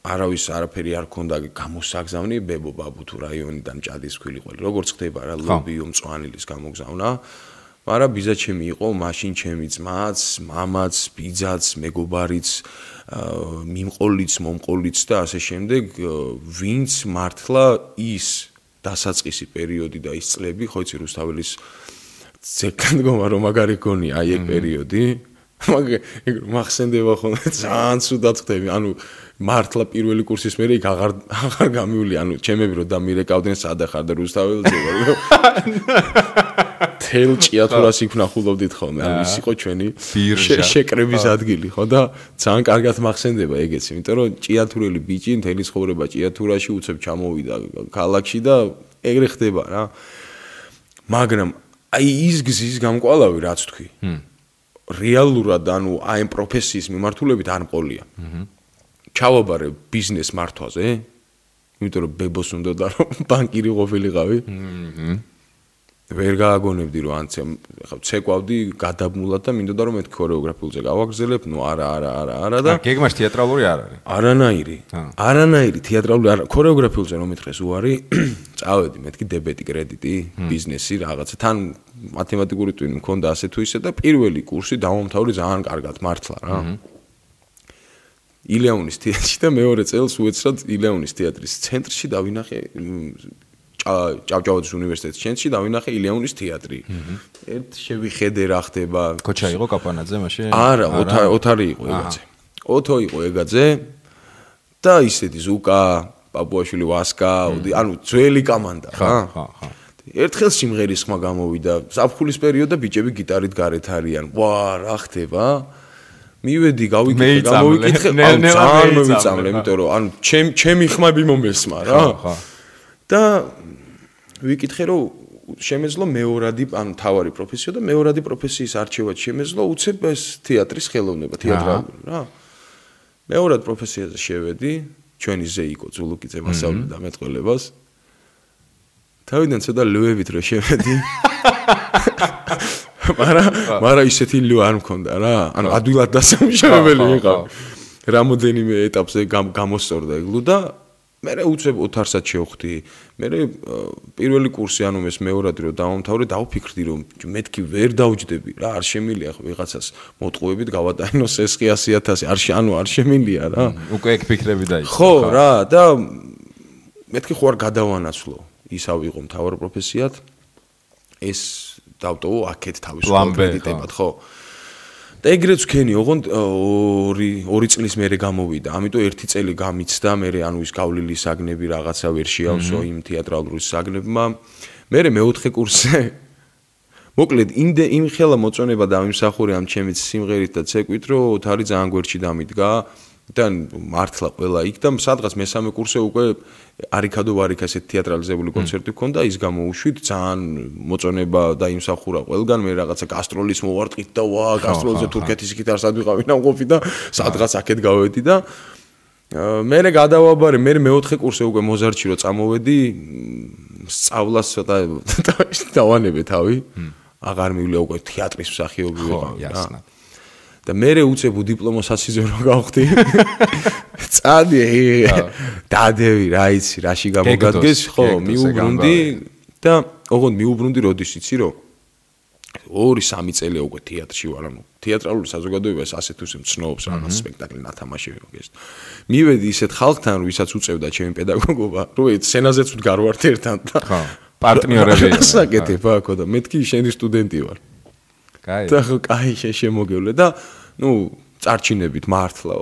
არავის არაფერი არ ქონდა გამოსაგზავნი ბებო ბაბუ თუ რაიონიდან ჭადის ქვილი როგორც ხდება რა ლობიო მწვანილის გამოგზავნა მაგრამ ბიძაჩემი იყო მაშინ ჩემი ძმაც, მამაც, ბიძაც, მეგობარიც მიმყოლიც, მომყოლიც და ასე შემდეგ ვინც მართლა ის დასაწყისი პერიოდი და ის წლები, ხო იცი რუსთაველის ზეკან მდგომა რომ მაგარი გონია აი ეგ პერიოდი. მაგ მახსენდება ხოლმე ძალიან ცუდად ხდები. ანუ მართლა პირველი კურსის მერე იქ აღარ გამივლი. ანუ ჩემები რომ დამირეკავდნენ სად ახარ და რუსთაველზე ვარ. თელ ჭიათურას იქ ვნახულობდით ხოლმე. ანუ ის იყო ჩვენი შეკრების ადგილი, ხო და ძალიან კარგად მახსენდება ეგეც, იმიტომ რომ ჭიათურელი ბიჭი მთელი ცხოვრება ჭიათურაში უცებ ჩამოვიდა ქალაქში და ეგრე ხდება რა. მაგრამ აი ის გზის გამკვალავი რაც თქვი. რეალურად ანუ აი ამ პროფესიის მიმართულებით არ მყოლია. ჩავაბარე ბიზნეს მართვაზე, იმიტომ რომ ბებოს უნდა და რომ ბანკირი ყოფილიყავი. ვერ გააგონებდი რომ ანცე ხა ცეკვავდი გადაბმულად და მინდოდა რომ მეთქი ქორეოგრაფიულზე გავაგრძელებ, ნუ არა და გეგმაში თეატრალური არ არის. არანაირი თეატრალური არა, ქორეოგრაფიულზე რომ მეთქეს უარი, წავედი მეთქი დებეტი კრედიტი, ბიზნესი რაღაცა, თან მათემატიკური ტვინი მქონდა ასე თუ ისე და პირველი კურსი დავამთავრე ძალიან კარგად მართლა რა. ილეონის თეატრში და მეორე წელს უეცრად ილეონის თეატრის ცენტრში დავინახე ჭავჭავაძის უნივერსიტეტის ცენტრში დავინახე ილეონის თეატრი. ერთ შევიხედე რა ხდება. კოჩა იყო კაპანაძე მაშინ? არა, ოთარი იყო ეგაძე. ოთო იყო ეგაძე და ისეთი ზუკა, პაპუაშვილი ვასკა, ანუ ძველი კომანდა რა. ერთხელ სიმღერის ხმა გამოვიდა. ზაფხულის პერიოდში ბიჭები გიტარით გარეთ არიან. ვა, რა ხდება? მივედი გავიკითხე, ძალიან მოვიწამლე, იმიტომ რომ ანუ ჩემი ხმები მომესმა რა. და ვიკითხე რომ შემეძლო მეორადი ანუ თავარი პროფესია და მეორადი პროფესიის არჩევად შემეძლო უცებ ეს თეატრის ხელოვნება თეატრალური რა მეორად პროფესიაზე შევედი ჩვენი ზე იყო ზულუკიძე მასწავლიდა მეტყველებას თავიდან ცოტა ლუებით რო შევედი მაგრამ ისეთი ლუ არ მქონდა რა ანუ ადვილად დასამუშავებელი იყო რამოდენიმე ეტაპზე გამოსწორდა ეგ ლუ და მე უცებ ოთარსაც შევხვდი. მე პირველი კურსი ანუ ეს მეორადი რომ დავამთავრე, დავფიქრდი რომ მეთქი ვერ დავჯდები რა, არ შემილია ხო ვიღაცას მოტყუებით გავატანოს ეს 100.000 ანუ არ შემილია რა. უკვე ეგ ფიქრები დაიწყო. ხო რა და მეთქი ხო არ გადავანაცვლო. ისა ვიყო მთავარ პროფესიად. ეს დავტოვო აქეთ თავისუფალ კრედიტებად, ხო? და ეგრეც ვქენი, ოღონდ 2 წლის მერე გამოვიდა. ამიტომ 1 წელი გამიცდა, მერე ანუ ის გავლილი საგნები რაღაცა ვერ შეავსო იმ თეატრალური საგნებმა. მერე მეოთხე კურსზე მოკლედ იმ ხელა მოწონება დავიმსახურე ამ ჩემი სიმღერით და ცეკვით, რომ ოთარი ძალიან გვერდში დამიდგა. და მართლა ყველა იქ და სადღაც მესამე კურსზე უკვე არიქადო ვარიქა ესეთ თეატრალიზებული კონცერტი ჰქონდა, ის გამოვუშვით, ძალიან მოწონება დაიმსახურა ყველგან, მე რაღაცა გასტროლის მოვარტყით და ვა, გასტროლზე თურქეთის გიტარს ადვიყავი ნამყოფი და სადღაც აქეთ გავედი და მერე გადავაბარე, მე მეოთხე კურსზე უკვე მოზარდში რო წამოვედი, სწავლას ცოტა დავანებე თავი, აღარ მივიდა უკვე თეატრის მსახიობი ვიყავი რა. და მე უცებ დიპლომოს ასიზე რო გავხდი. წადი დადევი რა იცი, რაში გამოგადგეს, ხო, მიუბრუნდი და ოღონდ მიუბრუნდი როდის იცი რომ 2-3 წელი უკვე თეატრში ვარ, ანუ თეატრალური საზოგადოებას ასე თუ ისე მცნობს რაღაც სპექტაკლი ნათამაშები მოგეს. მივედი ისეთ ხალხთან, ვისაც უწევდა ჩემი პედაგოგობა, რომ სცენაზეც ვდგარ ვარ ერთად და ხო, პარტნიორები. საკეთებ აქ და მეთქი შენი სტუდენტი ვარ. კაი. და კაი შემოგევლე და ნუ წარჩინებით მართლა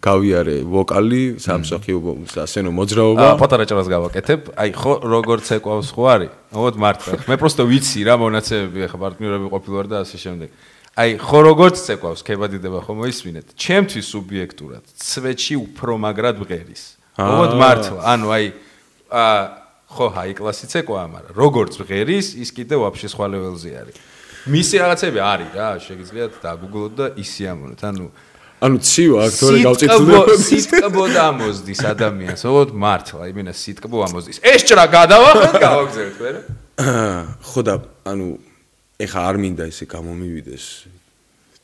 გავიარე ვოკალი, სამსახიობო ასენო მოძრაობა. პატარა ჭრას გავაკეთებ. აი ხო როგორც ეკვავს ხო არის? ოღონდ მართლა. მე просто ვიცი რა მონაცემები ახლა პარტნიორები ყოფილვარ და ასე შემდეგ. აი ხო როგორც ეკვავს, ქებადიდება ხო მოისმინეთ. ჩემთვის სუბიექტურად ცვეთში უფრო მაგრად ვღერის. ოღონდ მართლა. ანუ აი ხო ჰაი კლასიც ეკვაა, მაგრამ როგორც ვღერის, ის კიდე ვაფშე სხვა ლეველზე არის. მისი რაღაცები არის რა, შეგიძლიათ დაგუგლოთ და ისიამოვნოთ. ანუ ცივა აქტორი გავწითლდება. სიტკბო დამოზდის ადამიანს, ოღონდ მართლა, იმენა სიტკბო ამოზდის. ეს ჭრა გადავახეთ, გავაგზავნეთ მე რა. ხო და ანუ ეხა არ მინდა ესე გამომივიდეს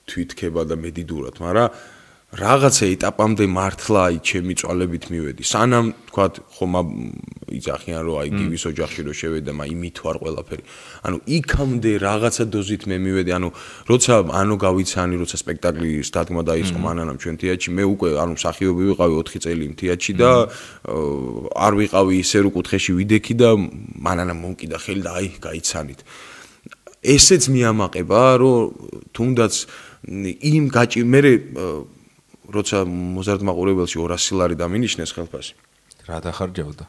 თვითქება და მედიდურად, მაგრამ რაღაცა ეტაპამდე მართლა აი ჩემი წვალებით მივედი. სანამ თქვა ხომ იცახიან რომ აი გივის ოჯახში რომ შევედა, იმით ვარ ყველაფერი. ანუ იქამდე რაღაცა დოზით მე მივედი, როცა გავიცანი, როცა სპექტაკლის დადგმა დაიწყო მანანამ ჩვენ თეატრში, მე უკვე მსახიობი ვიყავი 4 წელი თეატრში და არ ვიყავი ისე რომ კუთხეში ვიდექი და მანანამ მომკიდა ხელი და აი გაიცანით. ესეც მიამაყება, რომ თუნდაც იმ მე როცა მოზარდ მაყურებელში 200 ლარი დამინიშნეს ხელფასი. რა დახარჯავდა?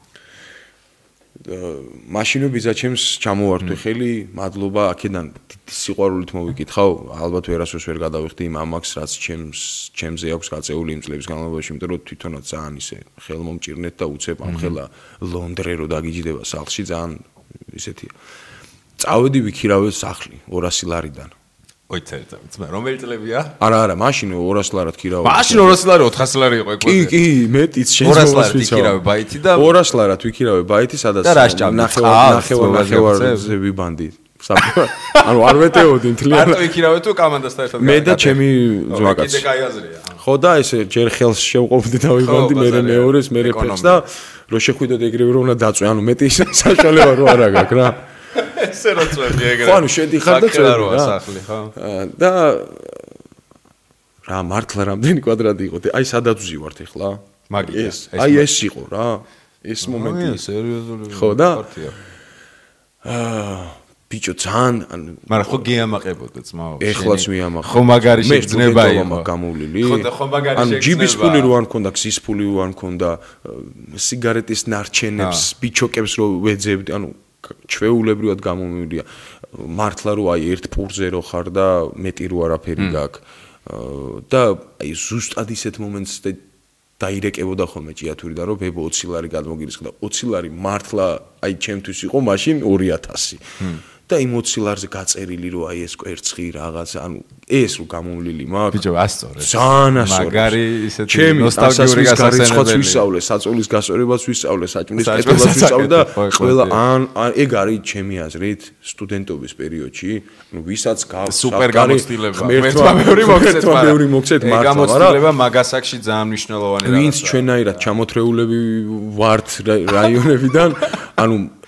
მაშინო ბიძაჩემს ჩამოვართვე ხელი, მადლობა, აქედან სიყვარულით მოვიკითხავ, ალბათ ვერასოდეს ვერ გადავიხდი იმ ამაკს, რაც ჩემზე აქვს გაწეული იმ წლების განმავლობაში, იმიტომ რომ თვითონაც ძალიან ისე ხელმომჭირნეთ და უცებ ამ ხელა ლონდრე რო დაგიჯდება სახლში, ძალიან ისეთია. წავედი ვიქირავე სახლი 200 ლარიდან. ოი ძმა რომელი წლებია? არა, მაშინ 200 ლარად ქირავე. მაშინ 200 ლარი 400 ლარი იყო ეკო. კი, მეტიც შენ 200 ლარად ვიქირავე ბაითი და 200 ლარად ვიქირავე ბაითი, სადაც ნახევარზე ვიბანდი. არ ვეტეოდი მთლიანად. მარტო ვიქირავე თუ კამანდასთან ერთად. მე და ჩემი ძმაკაც. კიდე კაი აზრია. ხო და ესე ჯერ ხელს შევყოფდი და ვიბანდი, მე მეორეს, მე ფეხს და რო შეხვიდოდ ეგრევე რომ უნდა დაწვე, მეტი საშუალება რო არ აქვს რა. ესე რა წვევი ეგრე. ხო, შედიხარ და წვევი რა. სახლი, ხო. და რა მართლა რამდენი კვადრატი იყო? აი სადაც ვზივართ ახლა? მაგის. აი ეს იყო რა. ეს მომენტი. სერიოზული. ხო და ბიჭო ძალიან მაგრამ ხო გეამაყებოდა ძმაო. ეხლაც მიამაყებ. ხო მაგარი შეგრძნება იყო გამოვლილი. ხო და ხო მაგარი შეგრძნება. ჯიბის ფული რო არ მქონდა, გზის ფული რო არ მქონდა, სიგარეტის ნარჩენებს, ბიჩოკებს რო ვეძებდი, ჩვეულებრივად გამომივიდა მართლა რომ აი ერთ პურზე რო ხარ და მეტი რო არაფერი გაქვს და აი ზუსტად ისეთ მომენტს დაირეკებოდა ხოლმე ჭიათური და რომ ბებო 20 ლარი გადმოგირისხა და 20 ლარი მართლა აი ჩემთვის იყო მაშინ 2000 და იმ 20 ლარზე გაწერილი რომ აი ეს კვერცხი რაღაცა ეს რო გამოვლილი მაქვს ბიჭო ასწორე ძალიან ასწორე მაგარი ისეთი ნოსტალგიური გასასწორებაც ვისწავლე საწოლის გასწორებაც ვისწავლე საჭმლის კეთებას ვისწავლე და ყველა ეგ არის ჩემი აზრით სტუდენტობის პერიოდში ვისაც სუპერ გამოცდილება ერთმა მოგცეთ მართლა გამოცდილება მაგასაკში ძალიან მნიშვნელოვანი რაღაცაა ვინც ჩვენაირად ჩამოთრეულები ვართ რაიონებიდან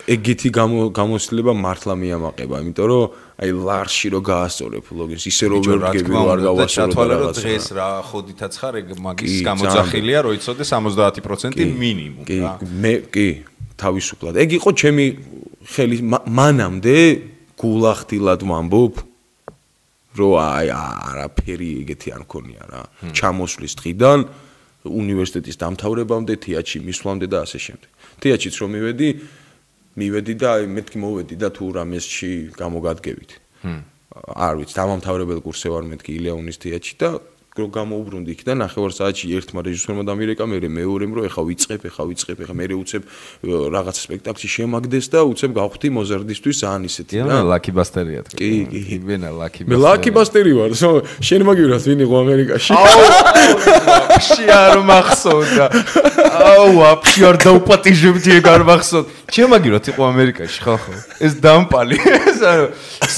ეგეთი გამოცდილება მართლა მიამაყება, იმიტომ რომ აი ლარში რო გაასწორებ ლოგინს, ისე რომ ვერ ვდგები რომ არ გავასწორო რაღაცა. დღეს რა ხოდითაც ხარ, ეგ მაგის გამოძახილია, რომ იცოდე 70% მინიმუმ რა. მე კი, თავისუფლად. ეგ იყო ჩემი ხელი მანამდე გულახდილად ვამბობ, რომ აი არაფერი ეგეთი არ მქონია რა. ჩამოსვლის დღიდან უნივერსიტეტის დამთავრებამდე, თეატრში მისვლამდე და ასე შემდეგ. თეატრშიც რომ მივედი და აი მეთქი მოვედი და თუ რამესში გამოგადგებით. არ ვიცი, დამამთავრებელ კურსზე ვარ მეთქი ილეონის თეატრში და რო გამოვბრუნდი იქ და ნახევარ საათში ერთმა რეჟისორმა დამირეკა, მეორემ რომ ეხა ვიწყებ, ეხა მე უცებ რაღაცა სპექტაკლში შემაგდეს და უცებ გავხდი მოზარდისთვის ძალიან ისეთი რა. მე ლაკი ბასტერია თქვი. კი, ვენა ლაკი ბასტერი. მე ლაკი ბასტერი ვარ, შენ მაგივრად ვინ იყო ამერიკაში? ვაფშე არ მახსოვდა. ვაფშე არ დაუპატიჟებდი ეგ არ მახსოვდა. შენ მაგივრად იყო ამერიკაში ხალხო. ეს დამპალი. ეს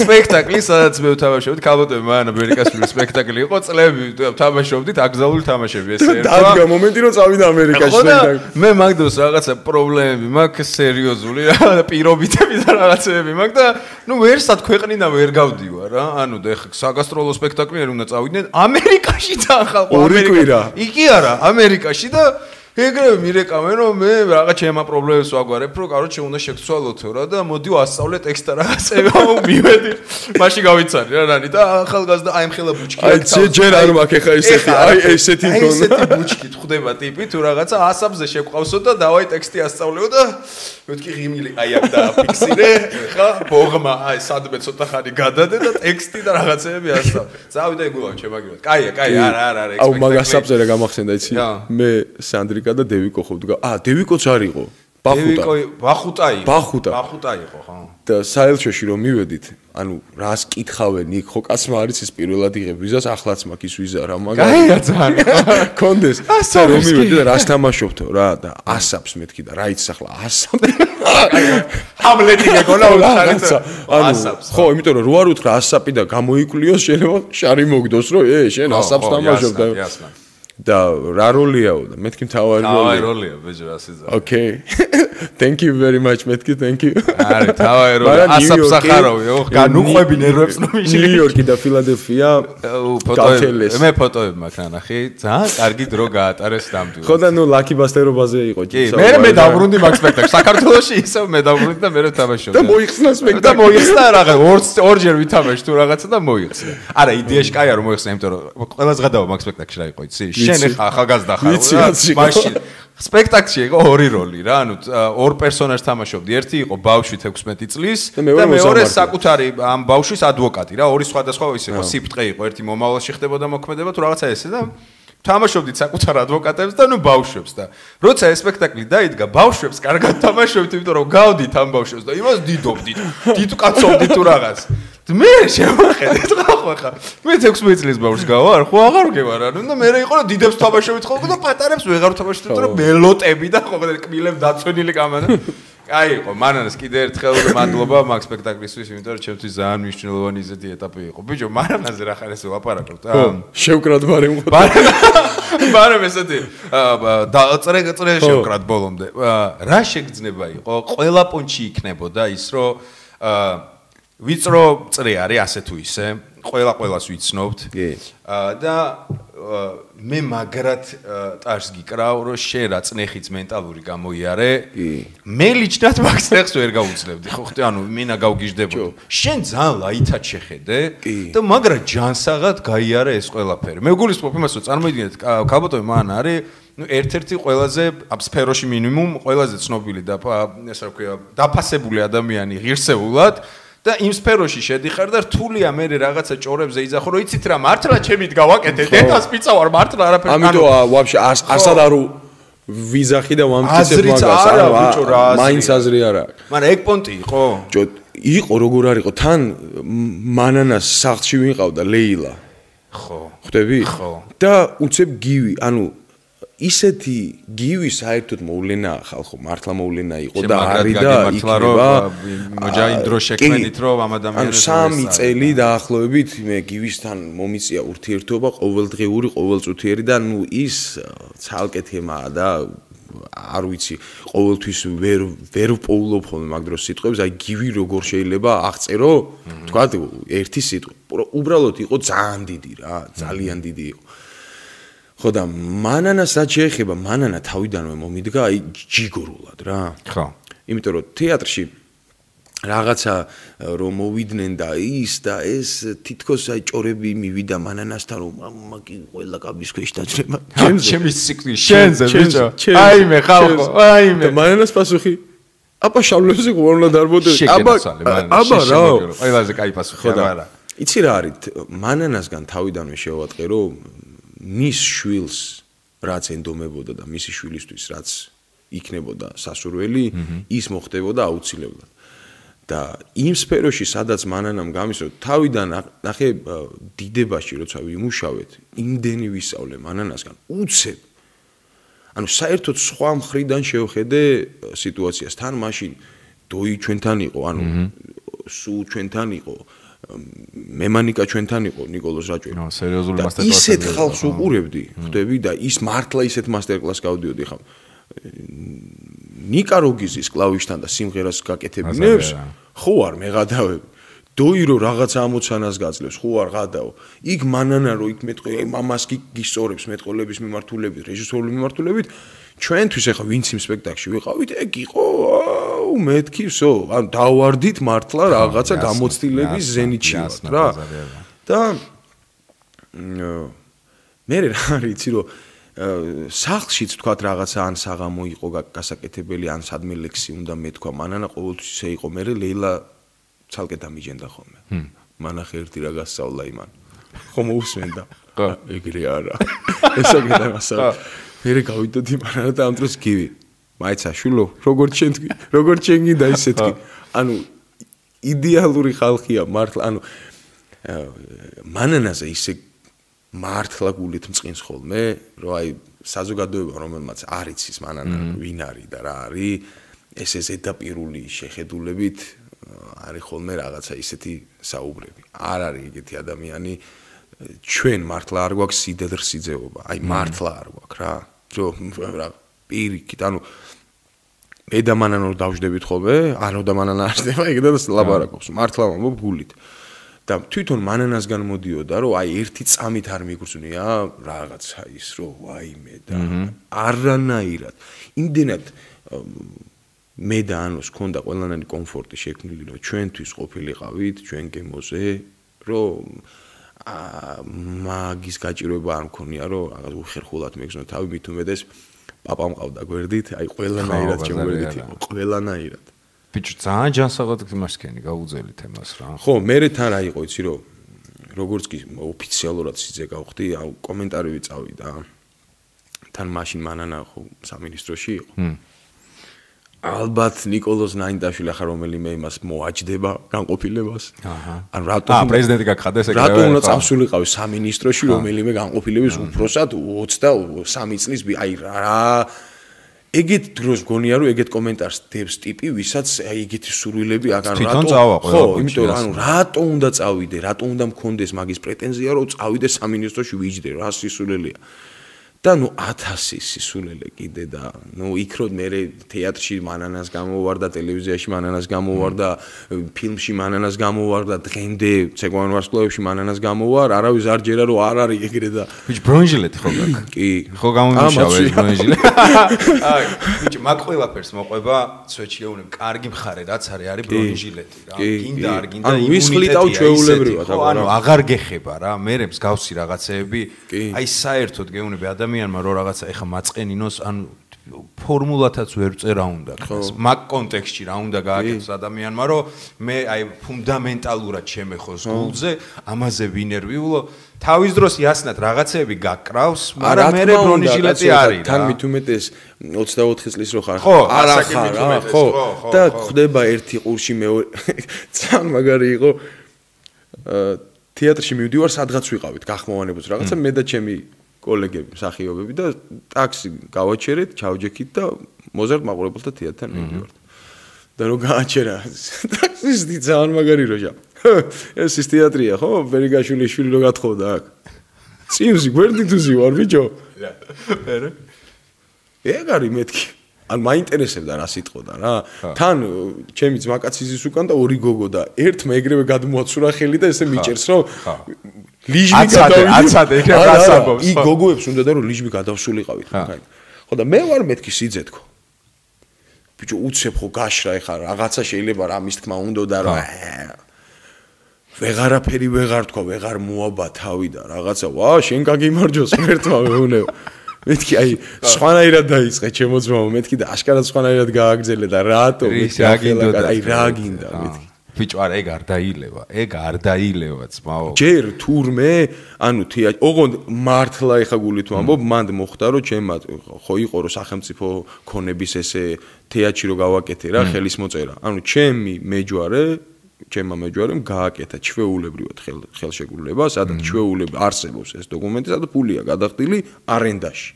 სპექტაკლი სადაც მე ვთამაშობდი, ქალბატონი მან ამერიკაში სპექტაკლი იყო წლები თამაშობდით აკზალური თამაშები ესე ერთხელ. დადგა მომენტი რომ წავიდა ამერიკაში სპექტაკლი. მე მაგდროს რაღაცა პრობლემები მაქვს სერიოზული რა პირობითები და რაღაცები მაქვს და ვერსად ქვეყნიდან ვერ გავდივარ რა. და ეხლა საგასტროლო სპექტაკლი არ უნდა წავიდნენ ამერიკაში და ხალხო ამერიკაში. იგი არა ამერიკაში და ეგრევე მირეკავენ რომ მე რაღაც ჩემა პრობლემებს ვაგვარებ რომ კაროჩე უნდა შეგცვალოთო რა და მოდი ვასწავლე ტექსტ და რაღაცები მივედი მაშინ გავიცანი რა რანი და ახალგაზრდა აი მხელა ბუჩკი აი ჯერ არ მაქვს ეხა ესეთი აი ესეთი თონა ესეთი ბუჩკი ხდება ტიპი თუ რაღაცა ასაბზე შეყვავსო და დავაი ტექსტი ასწავლეო და მეთქი ღიმილი აი აქ დააფიქსირე ხა ბოღმა აი სადმე ცოტა ხანი გადადე და ტექსტი და რაღაცები ასწავლე წავიდა ეგულავ ჩემაგივრად კაია არა აუ მაგასაბზე რა გამახსენდა იცი მე სანდრი და დევიკო ხოვდგა. დევიკოც არ იყო. ბახუტა იყო, ხო. და საელჩოში რომ მივედით, რას კითხავენ იქ, ხო კაცმა არის ის პირველად იღებ ვიზას, ახლაც მაქვს ის ვიზა რა, მაგრამ კაია ძალიან. კონდეს. და რომ მივედი და რას თამაშობთო რა და ასაბს მეთქი და რა იცი ახლა ასაბი. ჰამლეტი ეგონა ასაბს. ხო, იმიტომ რომ რო არ უთხრა ასაბი და გამოიკვლიოს შეიძლება შარი მოგდოს რომ შენ ასაბს თამაშობ და და რა როლიაო და მეთქი თავი როლია ბეჭო ასეცა Okay Thank you very much მეთქი thank you არა თავი როლია ასაფსახარავი განუყვები ნერვებს ნომიში ნიუ-იორკი და ფილადელფია ფოტოები მე ფოტოები მაქვს ანახი ძალიან კარგი დრო გაატარეს დამტვირთს ხო და ნუ ლაკი ბასტერობაზე იყო კი მე დავბრუნდი მაგ სპექტაკლს საქართველოში ისევ მე დავბრუნდი და მე თამაშობდი და მოიხსნა სპექტაკლი და მოიხსნა რაღაც ორჯერ ვითამაში თუ რაღაცა და მოიხსნა არა იდეაში კაია რომ მოიხსნა იმიტომ რომ ყველა ზღადაო მაგ სპექტაკლში რა იყო იცი შენ ეხა ახალგაზრდა ხარ მაშინ სპექტაკლში იყო ორი როლი რა ანუ ორ პერსონაჟს თამაშობდი ერთი იყო ბავშვი 16 წლის და მეორე საკუთარი ამ ბავშვის ადვოკატი რა ორი სხვადასხვა ის იყო სიფტყე იყო ერთი მომავალში ხდებოდა მოქმედება თუ რაღაცა ესე და თამაშობდით საკუთარ ადვოკატებს და ნუ ბავშვებს და როცა ეს სპექტაკლი დაიდგა ბავშვებს კარგად თამაშობთ იმიტომ რომ გავდით ამ ბავშვებს და იმას დიდობდით დიდ კაცობდით თუ რაღაც მე შევახედეთ ხა მე 16 წლის ბავშვს გავარ ხო აღარ გევარ ანუ და მე იყო რომ დიდებს თამაშობთ ხოლმე და პატარებს ვეღარ თამაშობთ რომ მელოტები და ხო კბილებ დაცვენილი კამარა აი იყო მანანას კიდე ერთხელ მადლობა მაგ სპექტაკლისთვის იმიტომ რომ ჩემთვის ძალიან მნიშვნელოვანი ისეთი ეტაპი იყო ბიჭო მანანაზე რა ხარ ესე ვაპარაკობთ შევკრად ბარემ ხო ბარემ ესეთი წრე შევკრად ბოლომდე რა შეგრძნება იყო ყველა პონჩი იქნებოდა ის რომ ვიწრო წრე არის ასე თუ ისე ყველას ვიცნობთ და მე მაგრად ტარს გიკრავ რომ შენ რა წნეხიც მენტალური გამოიარე მე ლიჩნად მაგ წნეხს ვერ გავუძლებდი ხო ხტი ანუ მინა გავგიჟდებოდი შენ ძალიან ლაითად შეხედე და მაგრად ჯანსაღად გაიარე ეს ყველაფერი მე გულისხმობ იმას რომ წარმოიდგინეთ ქალბატონი მან არის ну ერთ-ერთი ყველაზე ამ სფეროში მინიმუმ ყველაზე ცნობილი და ესე რა ქვია დაფასებული ადამიანი ღირსეულად და იმ სფეროში შედიხარ და რთულია მე რაღაცა ჭორებზე იძახო რომ იცით რა მართლა ჩემით გავაკეთე დედას პიცა ვარ მართლა არაფერი ამიტომ ვაფშე არსად არ ვიზახი და ვამტკიცებ მაგას არა ბიჭო რა მაინც აზრი არა მაგრამ ეგ პონტი იყო იყო როგორ არ იყო თან მანანას სახლში ვიყავდა ლეილა ხო ხვდები ხო და უცებ გივი ანუ ისეთი გივი საერთოდ მოვლენა ხალხო მართლა მოვლენა იყო და არის და იქნება მოჯაი დრო შექმნით რომ ამ ადამიანებს ანუ 3 წელი დაახლოებით მე გივისთან მომიწია ურთიერთობა ყოველდღიური ყოველწუთიერი და ნუ ის ცალკე თემაა და არ ვიცი ყოველთვის ვერ პოულობ ხოლმე მაგ დროს სიტყვებს აი გივი როგორ შეიძლება აღწერო თქვა ერთი სიტყვა უბრალოდ იყო ძალიან დიდი რა ძალიან დიდი იყო ხო და მანანას რაც შეეხება მანანა თავიდანვე მომიდგა აი ჯიგორულად რა ხო იმიტომ რომ თეატრში რაღაცა რომ მოვიდნენ და ის და ეს თითქოს აი ჭორები მივიდა მანანასთან რომ მაგი ყველა კაბის ქვეშ დაძრება ჩემის სიკვდილი შენზე ბიჭო აიმე ხალხო აიმე მანანას პასუხი აბა შავლებზე ყურნა დარბოდე აბა რა ყველაზე კაი პასუხი არა იცი რა არის მანანასგან თავიდანვე შევატყე რომ მის შვილს რაც ენდომებოდა და მისი შვილისთვის რაც იქნებოდა სასურველი ის მოხდებოდა აუცილებლად და იმ სფეროში სადაც მანანამ გამისრო თავიდან ნახე დიდებაში როცა ვიმუშავეთ იმდენი ვისწავლე მანანასგან უცებ ანუ საერთოდ სხვა მხრიდან შევხედე სიტუაციას თან მაშინ დოი ჩვენთან იყო ანუ სულ ჩვენთან იყო მემანიკა ჩვენთან იყო ნიკოლოზ რაჭველი. სერიოზული მასტერკლასი. ისეთ ხალხს უყურებდი, ხვდები და ის მართლა ისეთ მასტერკლასს გავდიოდი ხა. ნიკა როგიზის კლავიშთან და სიმღერას გაკეთებინებს, ხო არ მეღადავები. დოირო რაღაცა ამოცანას გაძლევს, ხო არ ღადაო. იქ მანანა რო იქ მეტყვი, მამას გისწორებს მეტყოლების მიმართულებით, რეჟისორული მიმართულებით, ჩვენთვის ახლა ვინც იმ სპექტაკლში ვიყავით, ეგ იყო მეთქივსო, ან დავარდით მართლა რაღაცა გამოცდილების ზენიტში ვართ რა. და მე რა არიცი რომ სახლშიც თქვა რაღაცა ან საღამო იყო გასაკეთებელი, ან სადმე ლექსი უნდა მეთქვა, მანანა ყოველთვის ისე იყო, მე ლეილა ცალკე დამიჯენდა ხოლმე. მანახე ერთი რა გასწავლა იმან. ხომ მოусმენდა. ხო, ეგრე არა. ესაგედა მასა. მე გავიდოდი მანანა და ამ დროს გივი. მაიცა შულო, როგორც შენ გინდა ისე თქვი. ანუ იდეალური ხალხია მართლა, ანუ მანანაზე ისე მართლა გულით მწყინს ხოლმე, რომ აი საზოგადოება რომელმაც არ იცის მანანა ვინ არის და რა არის, ესე ზედაპირული შეხედულებით არის ხოლმე რაღაცა ისეთი საუბრები. არ არის ეგეთი ადამიანი, ჩვენ მართლა არ გვაქვს სიდედრ სიძეობა, აი მართლა არ გვაქვს რა. რა პირიქით, ანუ მე და მანან რომ დავждებით ხოლმე, არო და მანან არ ხდება, ეგ და ლაბარაკობს. მართლა ვამბობ გულით. და თვითონ მანანასგან მოდიოდა, რომ აი ერთი წამით არ მიგრძვნია რაღაცა ის, რომ ვაიმე და არანაირად. იმდენად მე და ანოს ქონდა ყველანაირი კომფორტი შექმნილი, რომ ჩვენთვის ყოფილიყავით, ჩვენ გემოზე, რომ მაგის გაჭირვება არ მქონია, რომ რაღაც უხერხულად მეგზნო თავი, მით უმეტეს პაპა მყავდა გვერდით, აი ყველანაირად ჩემგვერდით იყო, ყველანაირად. ბიჭო, ძალიან ჯანსაღად გმარსქენი გაუძელი თემას რა. ხო, მე თან რა იყო, იცი რომ როგორც კი ოფიციალურად სიძე გავხდი, აუ კომენტარები წავიდა. თან მაშინ მანანა ხო სამინისტროში იყო. ალბათ ნიკოლოზ ნაინდაშვილი ახლა რომელიმე იმას მოაჯდება განყოფილებას. ან რატომ პრეზიდენტი გაგხადეს ეგრევე? რატომ უნდა წავსულიყავი სამინისტროში რომელიმე განყოფილების უფროსად 23 წლის აი რა ეგეთ დროს გონია რომ ეგეთ კომენტარს დებს ტიპი ვისაც აი ეგეთი სურვილები აღარ ხო, იმიტომ რომ ანუ რატომ უნდა წავიდე, რატომ უნდა მქონდეს მაგის პრეტენზია რომ წავიდე სამინისტროში ვიჯდე, რა სისულელია. და ნუ 1000 სისულელე კიდე და ნუ იქ რომ მე თეატრში მანანას გამოვარდა, ტელევიზიაში მანანას გამოვარდა, ფილმში მანანას გამოვარდა, დღემდე ცეკვან ვარსკვლავებში მანანას გამოვარ, არავის არ ჯერა რომ არ არის ეგრე და ბიჭ ბრონჟილეთი ხო გაქვს? კი. ხო გამომიშავა ეს ბრონჟილეთი. აი, ბიჭ მაგ ყველაფერს მოყვება სვეჩიეუნებ, კარგი მხარე რაც არის ბრონჟილეთი რა. გინდა არ გინდა ვისხლიტავ ჩვეულებრივად, ანუ აღარ გეხება რა, მე მსგავსი რაღაცეები, აი საერთოდ გეუნები ადამიანმა რო რაღაცა ეხა მაწყენინოს ან ფორმულათაც ვერ წერა უნდა გას მაგ კონტექსტში რა უნდა გააკეთოს ადამიანმა რომ მე აი ფუნდამენტალურად შემეხოს გულზე ამაზე ვინერვიულო თავის დროს იასნად რაღაცეები გაკრავს მაგრამ მე ბრონჟილეთი არის თან მით უმეტეს 24 წლის რო ხარ არა ხარ ხო და ხდება ერთი ყურში მეორე ძალიან მაგარი იყო თეატრში მივდივარ სადღაც ვიყავით გახმოვანებულს რაღაცა მე და ჩემი კოლეგები, მსახიობები და ტაქსი გავაჩერეთ, ჩავჯექით და მოზარდ მაყურებელთა თეატრთან მივდივართ. და რო გააჩერა, ტაქსისტი ძალიან მაგარი როჟა. ეს ის თეატრია, ხო? ბერიგაშვილის შვილი რო გათხოვდა აქ. წინსი გვერდით უზივარ, ბიჭო. მერე. ეგ არის მეთქი. ან მაინტერესებდა რა სიტყოდა რა. თან ჩემი ძმაკაცის უკან და ორი გოგო და ერთმა ეგრევე გადმოაცურა ხელი და ესე მიჭერს, რომ ლიჟბი გადავიდა. აცადე, იქ გასაგობს. იქ გოგოებს უნდა და რომ ლიჟბი გადავსულიყავით. ხო და მე ვარ მეთქი სიძე თქო. ბიჭო უცებ ხო გაშრა ეხა რაღაცა შეიძლება რამის თქმა უნდა და რა. ვეღარაფერი ვეღარ თქვა, ვეღარ მოაბა თავი და რაღაცა. ვა, შენ გაგიმარჯოს ერთმა მეუნეო. მეთქი აი სხვანაირად დაიწყე ჩემო ძმაო მეთქი და აშკარად სხვანაირად გააგრძელე და რატო აი რა გინდა მეთქი ბიჭო არა ეგ არ დაილევა ძმაო ჯერ თურმე ანუ ოღონდ მართლა ეხა გულით ვამბობ მანდ მოხდა რომ ჩემმა ხო იყო რომ სახელმწიფო ქონების ესე თეატრში რო გავაკეთე რა ხელის მოწერა ანუ ჩემმა მეჯვარემ გააკეთა ჩვეულებრივად ხელშეკრულება, სადაც ჩვეულებრივ არსებობს ეს დოკუმენტი, სადაც ფულია გადახდილი არენდაში.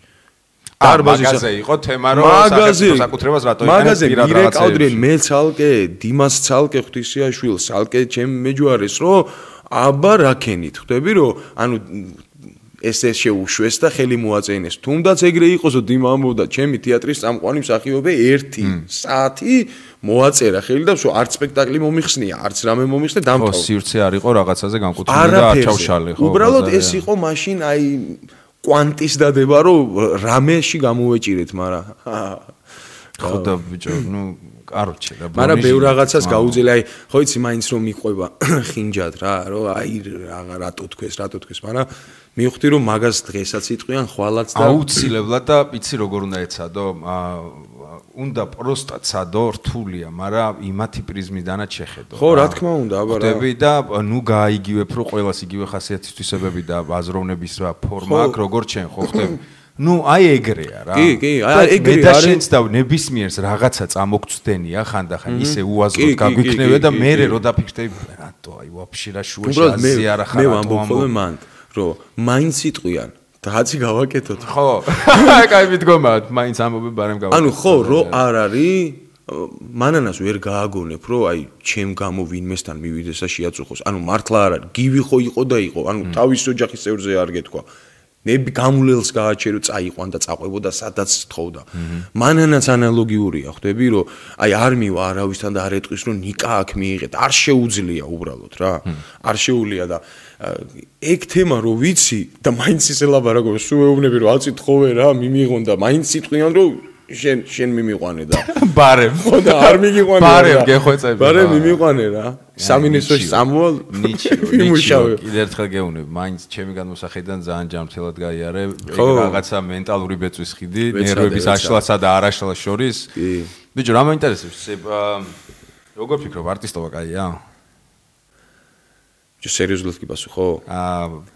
მაღაზია იყო თემა რომ სახელმწიფო საკუთრებას რატო იყენებს პირად რაღაცეებს. მირეკავდნენ მე ცალკე, დიმას ცალკე ღვთისიაშვილს, ცალკე ჩემ მეჯვარეს, რომ აბა რაკენით, ხვდები რომ ანუ ესე შეუშვეს და ხელი მოაწენეს. თუნდაც ეგრე იყოს, რომ დიმა ამბობდა, ჩემი თეატრის წამყვანი მსახიობი 1 საათი მოაწერა ხელი და ვსო არც სპექტაკლი მომიხსნია, არც რამე მომიხსნე დამთავრდა. ხო, სივრცე არ იყო რაღაცაზე განკუთვნილი და არ ჩავშალე, ხო. უბრალოდ ეს იყო მაშინ აი კვანტის დადება, რომ რამეში გამოვეჭირეთ, მაგრამ ხო და ბიჭო, ნუ კაროჩე რა. მაგრამ ბევრ რაღაცას გაუძელე, აი ხო იცი მაინც რომ მიყვება ხინჯად რა, რომ აი რატო თქვეს, მაგრამ მივხვდი რომ მაგას დღესაც იტყვიან ხვალაც და აუცილებლად და იცი როგორ უნდა ეცადო უნდა პროსტა ცადო რთულია, მაგრამ იმათი პრიზმიდანაც შეხედო. ხო, რა თქმა უნდა, აბა რა. ხდები და ნუ გაიგივებ რომ ყველას იგივე ხასიათის თვისებები და აზროვნების რა ფორმა აქვს, როგორ ჩვენ ხო ხდები. ნუ აი ეგრეა რა. კი, აი ეგრე არის. და შენც და ნებისმიერს რაღაცა წამოგწდენია ხანდახან ისე უაზროდ გაგვიქნევე და მე რო დაფიქრდები რატო აი ვაფშე რა შუაში აზია რა ხარ. მე ვამბობ ხოლმე მან რომ მაინც იტყვიან დაცი გავაკეთოთ. ხო. კაი მიდგომა, მაინც ამბობი ბარემ გავაკეთოთ. ანუ ხო, რო არ არის მანანას ვერ გააგონებ, რომ აი ჩემ გამო ვინმესთან მივიდეს და შეაწუხოს. ანუ მართლა არ არის. გივი ხო იყო და იყო. ანუ თავის ოჯახის წევრზე არ გეთქვა. ნები გამულელს გააჩერო წაიყვან და წაყვებოდა სადაც თხოვდა. მანანაც ანალოგიურია, ხვდები, რომ აი არ მივა არავისთან და არ ეტყვის, რომ ნიკა აქ მიიღეთ. არ შეუძლია უბრალოდ რა. არ შეუძლია და ეგ თემა რო ვიცი და მაინც ისე ლაბარაკობ, სულ ეუბნები რომ აცი თხოვე რა, მიმიღონ და მაინც სიტყვიან რომ შენ მიმიყვანე და ბარემ ხო და არ მიგიყვანე რა. ბარემ გეხვეწები. ბარემ მიმიყვანე რა. სამინისტროში წამოვალ. ნიჩიო. კიდე ერთხელ გეუბნები, მაინც ჩემი განმოსახედიდან ძალიან ჯანმრთელად გაიარე. ეგ რაღაცა მენტალური ბეწვის ხიდი, ნერვების აშლასა და არაშლას შორის. ბიჭო, რა მაინტერესებს? როგორ ფიქრობ, არტისტობა კაია? სერიოზულად კი პასუხო?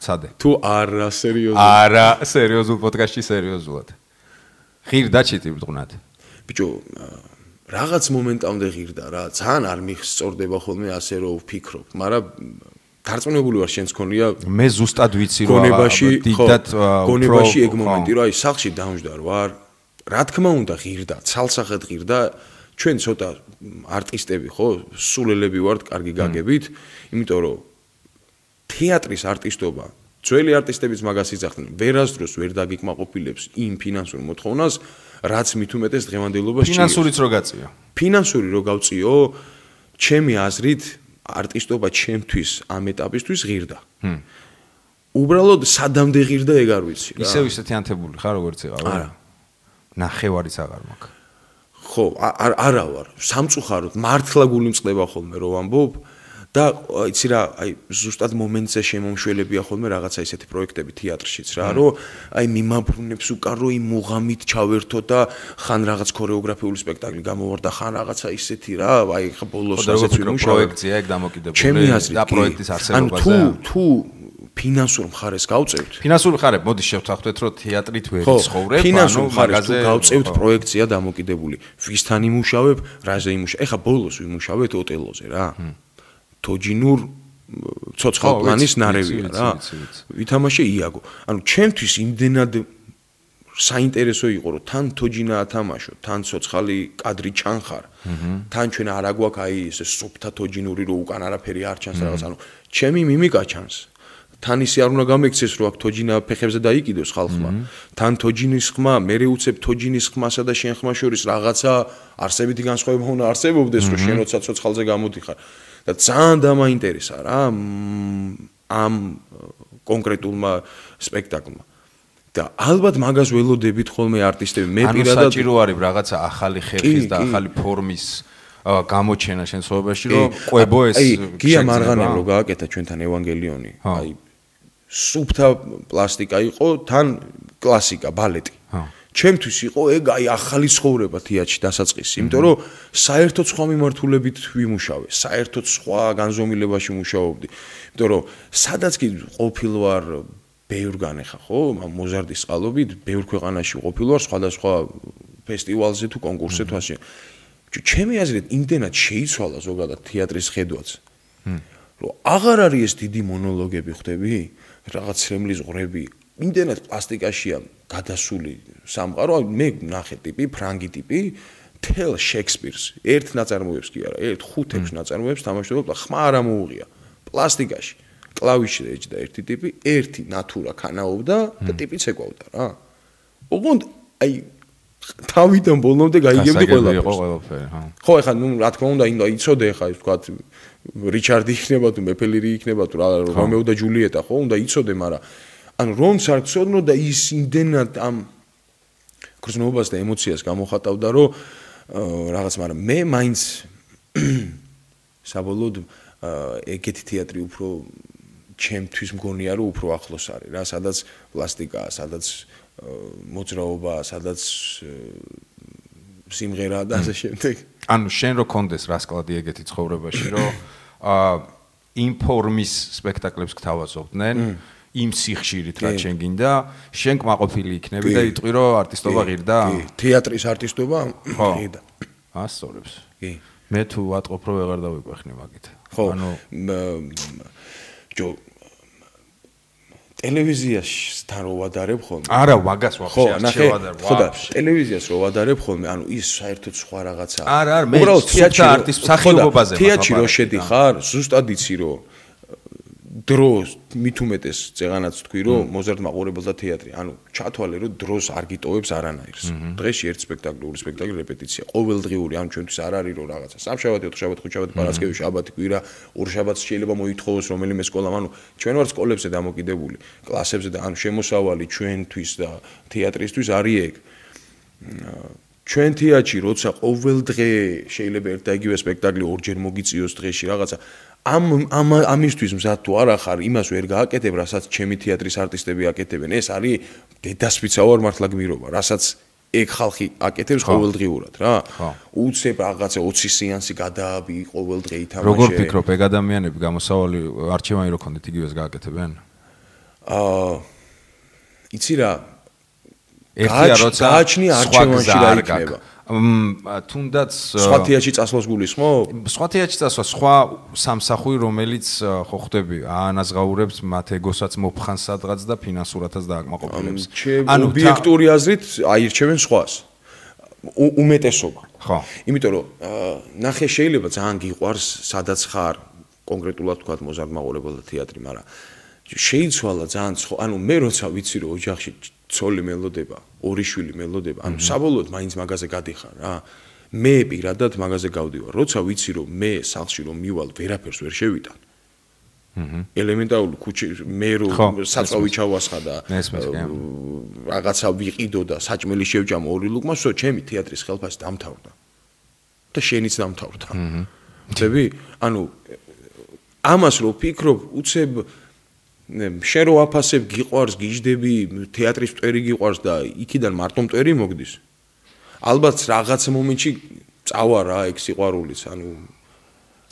ცადე. თუ არა სერიოზულად. არა, სერიოზულ პოდკასტში სერიოზულად. ღირდა ჩიტი ბრუნად. ბიჭო, რაღაც მომენტამდე ღირდა რა, ძალიან არ მიხსწორდება ხოლმე ასე რომ ვფიქრობ, მაგრამ დარწმუნებული ვარ შენც ქონია. მე ზუსტად ვიცი რომ დიდად გონებაში ეგ მომენტი რა, აი სახლში დამждარ ვარ. რა თქმა უნდა ღირდა, ცალსახად ღირდა. ჩვენ ცოტა არტისტები ხო, სულელები ვართ, კარგი გაგებით, იმიტომ რომ თეატრის არტისტობა ძველი არტისტებიც მაგას იძახდნენ. ვერასდროს ვერ დაგიკმაყოფილებს იმ ფინანსურ მოთხოვნას, რაც მით უმეტეს დღევანდელობას ჭირავს. ფინანსურიც რო გაწიო. ფინანსური რო გავწიო, ჩემი აზრით არტისტობა ჩემთვის ამ ეტაპისთვის ღირდა. უბრალოდ სადამდე ღირდა ეგ არ ვიცი რა. ისევ ისეთი ანთებული ხარ როგორც ეყავ? არა. ნახევარიც აღარ მაქვს. ხო, არა ვარ. სამწუხაროდ მართლა გული მწყდება ხოლმე რო ვამბობ. და იცი რა, აი ზუსტად მომენტზე შემომშველებია ხოლმე რაღაცა ისეთი პროექტები თეატრშიც რა, რომ აი მიმაბრუნებს უკან რომ იმ მუღამით ჩავერთო და ხან რაღაც ქორეოგრაფიული სპექტაკლი გამოვარდა, ხან რაღაცა ისეთი რა, აი ხა ბოლოს ასეც ვიმუშავე. პროექტია ეგ დამოკიდებული და პროექტის არსებობაზე. თუ ფინანსურ მხარეს გავწევთ. ფინანსური მხარე, მოდი შევთანხმდეთ, რომ თეატრით ვერ ცხოვრებ, ფინანსურ მხარეს თუ გავწევთ პროექტია დამოკიდებული. ვისთან იმუშავებ, რაზე იმუშავებ. ეხა ბოლოს ვიმუშავეთ ოტელოზე რა. თოჯინურ ცოცხალ პლანის ნარევია რა. ვითამაშე იაგო. ანუ ჩემთვის იმდენად საინტერესო იყო რომ თან თოჯინა ათამაშო, თან ცოცხალი კადრი ჩანხარ. თან ჩვენ არ აგვაქვს აი ესე სუფთა თოჯინური რომ უკან არაფერი არ ჩანს რაღაც. ანუ ჩემი მიმიკა ჩანს. თან ისე არ უნდა გამექცეს რომ აქ თოჯინა ფეხებზე დაიკიდოს ხალხმა. თან თოჯინის ხმა, მე უცებ თოჯინის ხმასა და შენ ხმა შორის რაღაცა არსებითი განსხვავება უნდა არსებობდეს რომ შენ როცა ცოცხალზე გამოდიხარ. და ძალიან დამაინტერესა რა ამ კონკრეტულმა სპექტაკლმა. და ალბათ მაგას ველოდებით ხოლმე არტისტები. მე პირადად საჭირო არის რაღაცა ახალი ხერხის და ახალი ფორმის გამოჩენა შენ ცხოვრებაში, რომ ყვებო ეს გია მარღანემ რო გააკეთა ჩვენთან ევანგელიონი. აი სუფთა პლასტიკა იყო, თან კლასიკა, ბალეტი. ჩემთვის იყო ეგ აი ახალი ცხოვრება თეატრში დასაწყისი, იმიტომ რომ საერთოდ სხვა მიმართულებით ვიმუშავე, საერთოდ სხვა განზომილებაში მუშაობდი. იმიტომ რომ სადაც კი ყოფილ ვარ ბევრგან ახლა ხო, მოზარდის წყალობით ბევრ ქვეყანაში ყოფილ ვარ, სხვადასხვა ფესტივალზე თუ კონკურსზე თუ ასე. ჩემი აზრით იმდენად შეიცვალა ზოგადად თეატრის ხედვაც. რომ აღარ არის ეს დიდი მონოლოგები ხვდები, რაღაც რემლის ღრები, იმდენად პლასტიკაშია გადასული სამყარო, მე ნახე ტიპი, ფრანგი ტიპი, თელ შექსპირს, ერთ ნაწარმოებს კი არა, ერთ 5-6 ნაწარმოებს თამაშობდა, ხმა არ ამოუღია. პლასტიკაში, კლავიშზე ეჭდა ერთი ტიპი, ერთი ნატურა ქანაობდა და ტიპიც ეკავდა რა. ოღონდ აი თავიდან ბოლომდე გაიგებდი ყველაფერს. ხო, ეხლა ნუ რა თქმა უნდა, იცოდე ეხლა ის თქვა რიჩარდი იქნება თუ მეფელირი იქნება თუ რომეო და ჯულიეტა, ხო, უნდა იცოდე, მაგრამ ანუ რომც არ გწოდნო და ის იმდენად ამ გრძნობას და ემოციას გამოხატავდა, რომ რაღაც, მაგრამ მე მაინც საბოლოოდ ეგეთი თეატრი უფრო ჩემთვის მგონია, რომ უფრო ახლოს არის რა, სადაც პლასტიკაა, სადაც მოძრაობაა, სადაც სიმღერაა და ასე შემდეგ. ანუ შენ რო კონდეს რასკლადი ეგეთი ცხოვრებაში, რომ იმ ფორმის სპექტაკლებს გთავაზობდნენ, იმ სიხშირით რაც შენ გინდა, შენ კმაყოფილი იქნები და იტყვი რომ არტისტობა ღირდა? კი, თეატრის არტისტობა ღირდა. ასწორებს. კი. მე თუ ვატყობ რომ ვეღარ დავიყვეხნი მაგით. ანუ ტელევიზიასთან რო ვადარებ ხოლმე. არა, მაგას ვაფშე არ შევადარ. ხო და ტელევიზიას რო ვადარებ ხოლმე, ანუ ის საერთოდ სხვა რაღაცაა. არა, მე თეატრში არტისტ მსახიობობაზე თეატრში რო შედიხარ, ზუსტად იცი რომ დროს მით უმეტეს წეღანაც თქვი რომ მოზარდ მაყურებელთა თეატრი, ანუ ჩათვალე რომ დროს არ გიტოვებს არანაირს. დღეში ერთ სპექტაკლი, ორი სპექტაკლი რეპეტიცია, ყოველდღიური, ანუ ჩვენთვის არ არის რომ რაღაცა სამშაბათი, ოთხშაბათი, ხუთშაბათი, პარასკევი, შაბათი, კვირა, ორ შაბათს შეიძლება მოითხოვოს რომელიმე სკოლამ, ანუ ჩვენ ვართ სკოლებზე დამოკიდებული, კლასებზე და ანუ შემოსავალი ჩვენთვის და თეატრისთვის არის ეგ. ჩვენ თეატრში როცა ყოველდღე შეიძლება ერთ და იგივე სპექტაკლი ორჯერ მოგიწიოს დღეში რაღაცა ამისთვის მზად თუ არა ხარ, იმას ვერ გააკეთებ, რასაც ჩემი თეატრის არტისტები აკეთებენ. ეს არის დედასვიცა ვარ მართლა გმირობა, რასაც ეგ ხალხი აკეთებს ყოველდღიურად რა. უცებ რაღაცა 20 სეანსი გადააბი ყოველდღე ითამაშე. როგორ ფიქრობ, ეგ ადამიანები გამოსავალი არჩევანი რო ქონდეთ, იგივეს გააკეთებენ? იცი რა, ერთია როცა გააჩნი არჩევანში რა იქნება. თუნდაც სხვა თეატრში წასვლას გულისხმობ? სხვა თეატრში წასვლა, სხვა სამსახური, რომელიც ხო ხდები, აანაზღაურებს მათ ეგოსაც მოფხანს სადღაც და ფინანსურათაც დააკმაყოფილებს. ანუ ობიექტური აზრით აირჩევენ სხვას. უმეტესობა. ხო. იმიტომ რომ ნახე შეიძლება ძალიან გიყვარს, სადაც ხარ, კონკრეტულად თქვა მოზარდ მაყურებელთა თეატრი, მაგრამ შეიცვალა ძალიან ანუ მე როცა ვიცი რომ ოჯახში ცოლი მელოდება, ორი შვილი მელოდება, ანუ საბოლოოდ მაინც მაგაზე გადიხარ რა. მე პირადად მაგაზე გავდივარ. როცა ვიცი რომ მე სახლში რომ მივალ, ვერაფერს ვერ შევიტან. ელემენტარული ქუჩი მე რომ საწავი ჩავასხა და რაღაცა ვიყიდო და საჭმელი შევჭამ ორი ლუკმა, всё, ჩემი თეატრის ხელფასი დამთავრდა. და შენიც დამთავრდა. ხდები? ანუ ამას რო ფიქრობ, უცებ შენ რო აფასებ, გიყვარს, გიждები, თეატრის მტვერი გიყვარს და იქიდან მარტო მტვერი მოგდის. ალბათ რაღაც მომენტში წავა რა ეგ სიყვარულიც, ანუ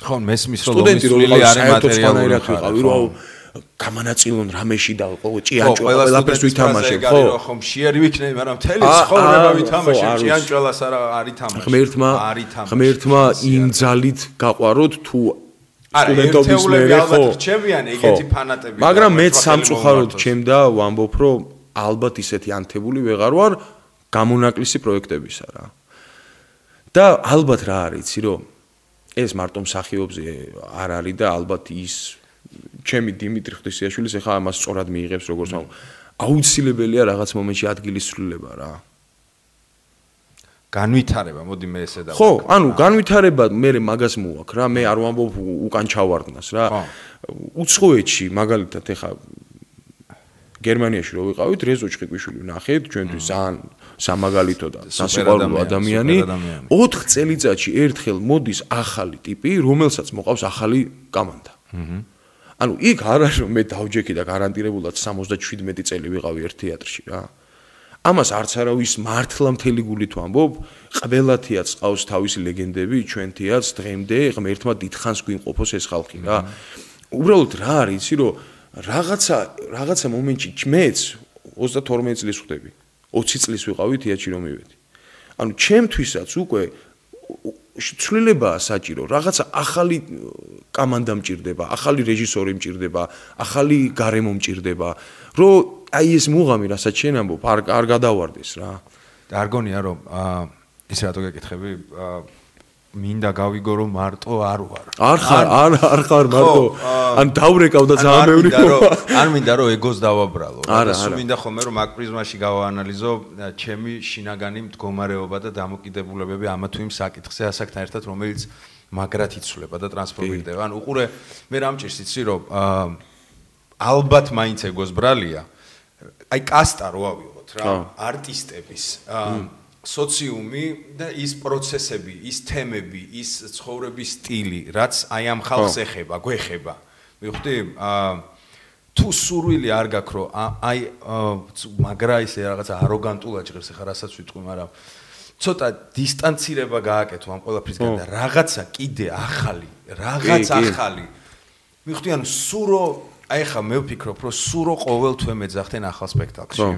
ხო, მესმის რომ ლომისული არის მატერიალური ხარ, რომ გამანაწილონ რამეში და ჭიანჭო ყველაფერს ვითამაშებ, ხო? ხო, მშიერი ვიქნები, მაგრამ მთელი ცხოვრება ვითამაშებ, ჭიანჭველას არ ითამაშებ. ღმერთმა იმ ძალით გაყვაროთ თუ სტუდენტობის მერე ხო რჩებიან ეგეთი ფანატები მაგრამ მეც სამწუხაროდ ჩემდა ვამბობ რომ ალბათ ისეთი ანთებული ვეღარ ვარ გამონაკლისი პროექტებისა რა და ალბათ რა არის იცი რომ ეს მარტო მსახიობზე არ არის და ალბათ ის ჩემი დიმიტრი ღვთისიაშვილის ეხა ამას სწორად მიიღებს როგორც აუცილებელია რაღაც მომენტში ადგილის ცვლილება რა განვითარება, მოდი მე ესე და ხო, ანუ განვითარება მე მაგას მოვაქ რა, მე არ ვამბობ უკან ჩავარდნას რა. უცხოეთში მაგალითად ეხა გერმანიაში რო ვიყავით, რეზო ჭყიკვიშვილი ვნახეთ, ჩვენთვის ძალიან სამაგალითო და სასიყვარულო ადამიანი. 4 წელიწადში ერთხელ მოდის ახალი ტიპი, რომელსაც მოყავს ახალი კომანდა. ანუ იქ არ არის რომ მე დავჯექი და გარანტირებულად 77 წელი ვიყავი ერთ თეატრში რა. ამას არც არავის მართლა მთელი გულით ვამბობ, ყველა თეატრს ყავს თავისი ლეგენდები, ჩვენ თეატრს დღემდე ღმერთმა დიდხანს გვიმყოფოს ეს ხალხი რა. უბრალოდ რა არის, იცი რომ რაღაცა მომენტში მეც 32 წლის ვხდები. 20 წლის ვიყავი თეატრში რომ მივედი. ანუ ჩემთვისაც უკვე ცვლილებაა საჭირო, რაღაცა ახალი კომანდა მჭირდება, ახალი რეჟისორი მჭირდება, ახალი გარემო მჭირდება, რომ აი ეს მუღამი, რასაც შენ ამბობ, არ გადავარდეს რა. და არ გონია რომ ის რატო გეკითხები, მინდა გავიგო რომ მარტო არ ვარ. არ ხარ მარტო. ან დავრეკავ და ძალიან ბევრი არ მინდა რომ ეგოს დავაბრალო. სულ მინდა ხოლმე რომ მაგ პრიზმაში გავაანალიზო ჩემი შინაგანი მდგომარეობა და დამოკიდებულებები ამა თუ იმ საკითხზე ასაკთან ერთად რომელიც მაგრად იცვლება და ტრანსფორმირდება. ან უყურე მე რამჭირს იცი რომ ალბათ მაინც ეგოს ბრალია. აი კასტა რო ავიღოთ რა, არტისტების სოციუმი და ის პროცესები, ის თემები, ის ცხოვრების სტილი, რაც აი ამ ხალხს ეხება, გვეხება. მივხვდი? თუ სურვილი არ გაქვს რომ აი მაგრა ისე რაღაცა აროგანტულად ჭირებს ახლა რასაც ვიტყვი, მაგრამ ცოტა დისტანცირება გააკეთო ამ ყველაფრისგან და რაღაცა კიდე ახალი, რაღაც ახალი. მივხვდი, ანუ სურო აი ხა მე ვფიქრობ რომ სურო ყოველთვე მეძახდნენ ახალ სპექტაკლში.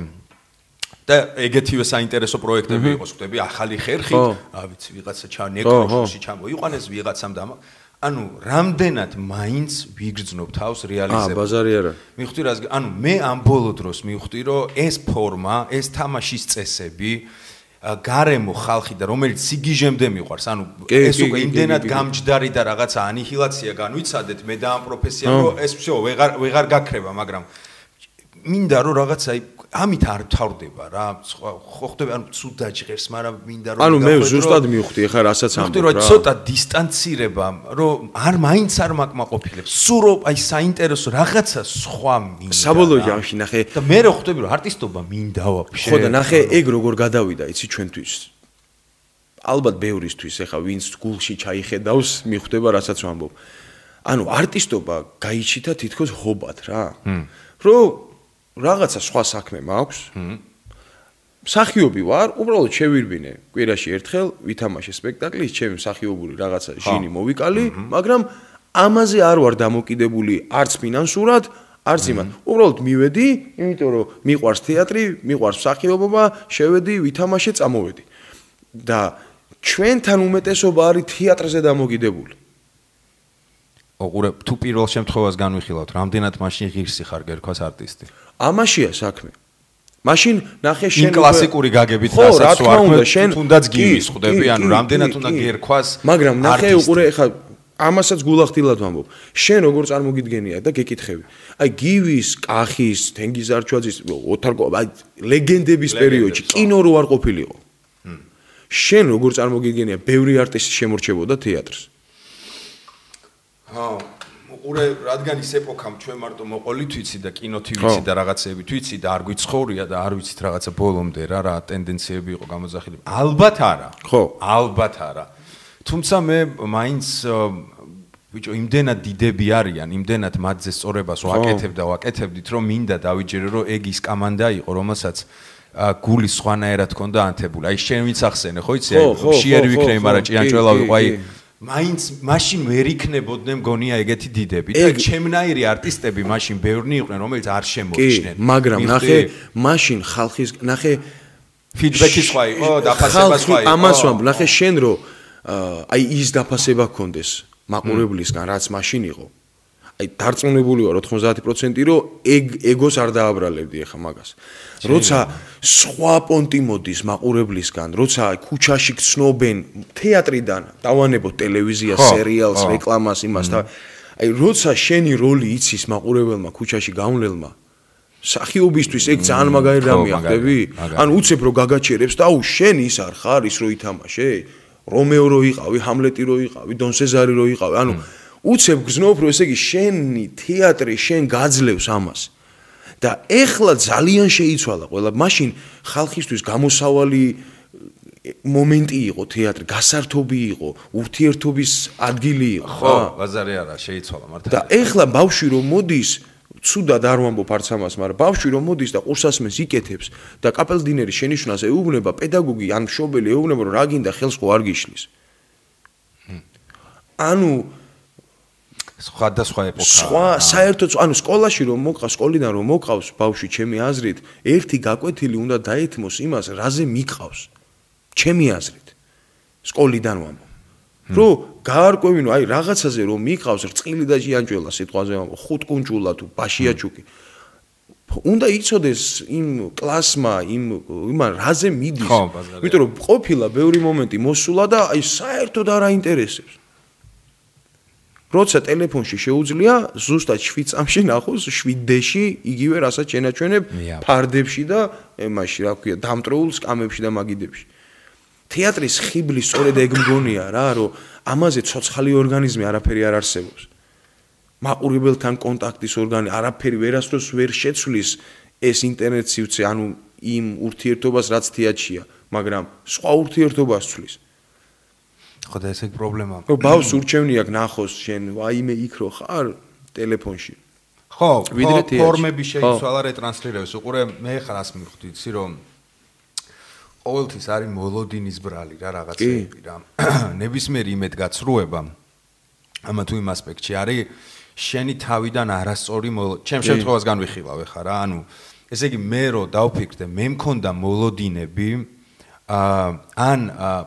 და ეგეთივე საინტერესო პროექტები იყოს, ხდები, ახალი ხერხით, რა ვიცი, ვიღაცა ნეკროშში ჩამოიყვანეს ვიღაცამ და ანუ რამდენად მაინც ვიგრძნობ თავს რეალიზებას. ბაზარი არა. მივხვდი რას, ანუ მე ამ ბოლო დროს მივხვდი, რომ ეს ფორმა, ეს თამაშის წესები გარემო ხალხი და რომელიც სიგიჟემდე მიყვარს, ანუ ეს უკვე იმდენად გამჯდარი და რაღაცა ანიჰილაცია განვიცადეთ მე და ამ პროფესიამ, რომ ეს всё ვეღარ გაქრება, მაგრამ მინდა რომ რაღაცა ამით არ თავდება რა, ხო ხდება, ანუ ცუდ დაჭღერს, მაგრამ მინდა რომ ანუ მე ზუსტად მივხვდი, ახლა რასაც ამბობ რა. მივხვდი რომ ცოტა დისტანცირება, რომ მაინც არ მაკმაყოფილებს, სულ რომ აი საინტერესო რაღაცა სხვა მინდა. საბოლოო ჯამში ნახე და მე რო ხვდები რომ არტისტობა მინდა ვაფშე. ხო და ნახე ეგ როგორ გადავიდა, იცი ჩვენთვის. ალბათ ბევრისთვის, ახლა ვინც გულში ჩაიხედავს, მიხვდება რასაც ვამბობ. ანუ არტისტობა გაიჩითა თითქოს ჰობად რა. რომ რაღაცა სხვა საქმე მაქვს. მსახიობი ვარ, უბრალოდ შევირბინე კვირაში ერთხელ, ვითამაშე სპექტაკლის, ჩემი მსახიობური რაღაცა ჟინი მოვიკალი, მაგრამ ამაზე არ ვარ დამოკიდებული არც ფინანსურად, არც იმად. უბრალოდ მივედი, იმიტომ რომ მიყვარს თეატრი, მიყვარს მსახიობობა, შევედი, ვითამაშე, წამოვედი. და ჩვენთან უმეტესობა არის თეატრზე დამოკიდებული. ოღონდ თუ პირველ შემთხვევას განვიხილავთ, რამდენად მაშინ ღირსი ხარ გერქვას არტისტი? ამაშია საქმე. მაშინ ნახე შენ კლასიკური გაგებით რასაც ვარ, თუნდაც გივის ხვდები, ანუ რამდენად უნდა გერქვას. მაგრამ ნახე უყურე ხა ამასაც გულახდილად ვამბობ. შენ როგორ წარმოგიდგენია და გეკითხები. აი გივის, კახის, თენგიზარჩვაძის, ოთარკო, აი ლეგენდების პერიოდში კინო რო არ ყოფილიყო. შენ როგორ წარმოგიდგენია, ბევრი არტისტი შემორჩებოდა თეატრს. უყურე, რადგან ის ეპოქამ ჩვენ მარტო მოყოლით ვიცი და კინოთი ვიცი და რაღაცეები ვიცი და არ გვიცხოვრია და არ ვიცით რაღაცა ბოლომდე რა ტენდენციები იყო გამოძახილები. ალბათ არა. ხო, ალბათ არა. თუმცა მე მაინც ბიჭო იმდენად დიდები არიან, იმდენად მათზე სწორებას ვაკეთებდით, რომ მინდა დავიჯერო, რომ ეგ ის კამანდა იყო, რომელსაც გულის სხვანაირად ჰქონდა ანთებული. აი შენ ვინც ახსენე, ხო იცი, აი შიერი ვიქნები, მაგრამ ჭიანჭველა ვიყო, აი მაინც მაშინ ვერ იქნებოდნენ მგონია ეგეთი დიდები და ჩემნაირი არტისტები მაშინ ბევრნი იყვნენ რომელიც არ შემოიჩნენ მაგრამ ნახე მაშინ ხალხის ნახე ფიდბექი სხვა იყო დაფასება სხვა იყო ამას ვამბობ ნახე შენ რო აი ის დაფასება გქონდეს მაყურებლისგან რაც მაშინ იყო აი დარწმუნებული ვარ 90% რომ ეგოს არ დააბრალებდი ახლა მაგას როცა სხვა პონტი მოდის მაყურებლისგან როცა ქუჩაში გცნობენ თეატრიდან დავანებოთ ტელევიზიას სერიალს რეკლამას იმას და აი როცა შენი როლი იცის მაყურებელმა ქუჩაში გავლენილმა სახიობისთვის ეგ ძალიან მაგარი რამეა ხდები ანუ უცებ რო გაგაჩერებს და აუ შენ ის არ ხარ ის რო ითამაშე რომეო რო იყავი ჰამლეტი რო იყავი დონ სეზარი რო იყავი ანუ უცებ გზნობ რომ ესე იგი შენი თეატრი შენ გაძლევს ამას და ეხლა ძალიან შეიცვალა ყველა მაშინ ხალხისთვის გამოსავალი მომენტი იყო თეატრი გასართობი იყო ურთიერთობის ადგილი იყო ხო ბაზარი არა შეიცვალა მართლა და ეხლა ბავშვი რომ მოდის ცუდად არ ვამბობ არც ამას მაგრამ ბავშვი რომ მოდის და ყურსასმენს იკეთებს და კაპელდინერი შენიშვნას ეუბნება პედაგოგი ან მშობელი ეუბნება რომ რა გინდა ხელს ხო არ გიშლის ანუ სხვადასხვა ეპოქა. სხვა საერთოდ ანუ სკოლაში რომ მოყავს, სკოლიდან რომ მოყავს ბავშვი ჩემი აზრით, ერთი გაკვეთილი უნდა დაეთმოს იმას, რაზე მიყავს. ჩემი აზრით. სკოლიდან ვამბობ. რომ გაარკვევინო, აი რაღაცაზე რომ მიყავს, რწყილი და ჭიანჭველა სიტყვაზე ვამბობ, ხუთკუნჭულა თუ ბაშიაჩუკი. უნდა იცოდეს იმ კლასმა, იმან რაზე მიდის. იმიტომ რომ ყოფილა ბევრი მომენტი მოსულა და აი საერთოდ არ აინტერესებს. როცა ტელეფონში შეუძლია ზუსტად 7 წამში ნახოს 7D-ში იგივე რასაც შენაჩვენებ ფარდებში და ემაში რა ქვია დამტროულ სკამებში და მაგიდებში თეატრის ხიბლის სწორედ ეგ მგონია რა რომ ამაზე ცოცხალი ორგანიზმი არაფერი არ არსებობს მაყურებელთან კონტაქტის ორგანიზმი არაფერი ვერასდროს ვერ შეცვლის ეს ინტერნეტ სივრცე ანუ იმ ურთიერთობას რაც თეატრია მაგრამ სხვა ურთიერთობას ცვლის ხო და ეს ეგ პრობლემაა. რომ ბავშვს ურჩევნი აქვს ნახოს შენ ვაიმე იქ რო ხარ ტელეფონში. ხო, ფორმები შეიცვალა რეტრანსლირებს. უყურე მე ხარას მივხვდი, იცი რომ ყოველთვის არის მოლოდინის ბრალი რა რაღაცები რა. ნებისმიერი იმედგაცრუება ამა თუ იმ ასპექტში არის შენი თავიდან არასწორი ჩემ შემთხვევას განვიხილავ ხა რა. ანუ ესე იგი მე რო დავფიქრდე მე მქონდა მოლოდინები ან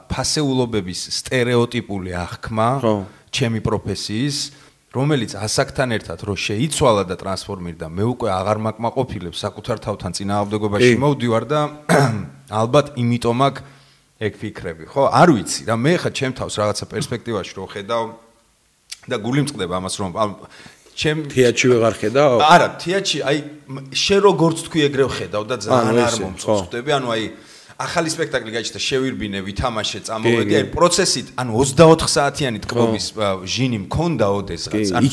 ფასეულობების სტერეოტიპული აღქმა ჩემი პროფესიის რომელიც ასაკთან ერთად რო შეიცვალა და ტრანსფორმირდა მე უკვე აღარ მაკმაყოფილებს საკუთარ თავთან წინააღმდეგობაში მოვდივარ და ალბათ იმიტომ აქ ეგ ფიქრები ხო არ ვიცი რა მე ხა ჩემ თავს რაღაცა პერსპექტივაში რო ხედავ და გული მწყდება ამას რომ ჩემ თეატრში ვეღარ ხედავ არა თეატრში აი შე როგორც თქვი ეგრევ ხედავ და ძალიან არ მომწონს ანუ აი ახალი სპექტაკლი გაჩნდა შევირბინე ვითამაშე წამოვედი აი პროცესით ანუ 24 საათიანი ტკბობის ჟინი მქონდა ოდესღაც ანუ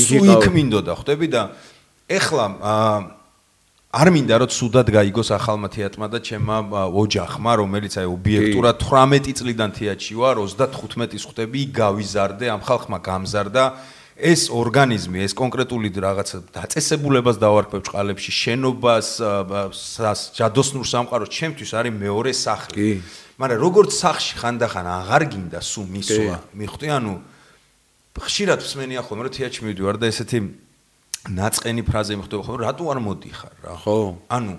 სუიქ მინდოდა ხვდები და ეხლა არ მინდა რომ სუდად გაიგოს ახალმა თეატრმა და ჩემმა ოჯახმა რომელიც აი ობიექტურად 18 წლიდან თეატრში ვარ 35-ის ხვდები გავიზარდე ამ ხალხმა გამზარდა ეს ორგანიზმი, ეს კონკრეტული რაღაცა დაწესებულებას დავარქვევ ჭყალებში, შენობას, ჯადოსნურ სამყაროს, ჩემთვის არის მეორე სახლი. მაგრამ როგორც სახლში ხანდახან აღარ გინდა სულ მისვლა, მიხვდი, ანუ ხშირად მსმენია ხოლმე, რომ თეატრში მივდივარ და ესეთი ნაწყენი ფრაზე მიხვდება ხოლმე, რატო არ მოდიხარ რა? ხო. ანუ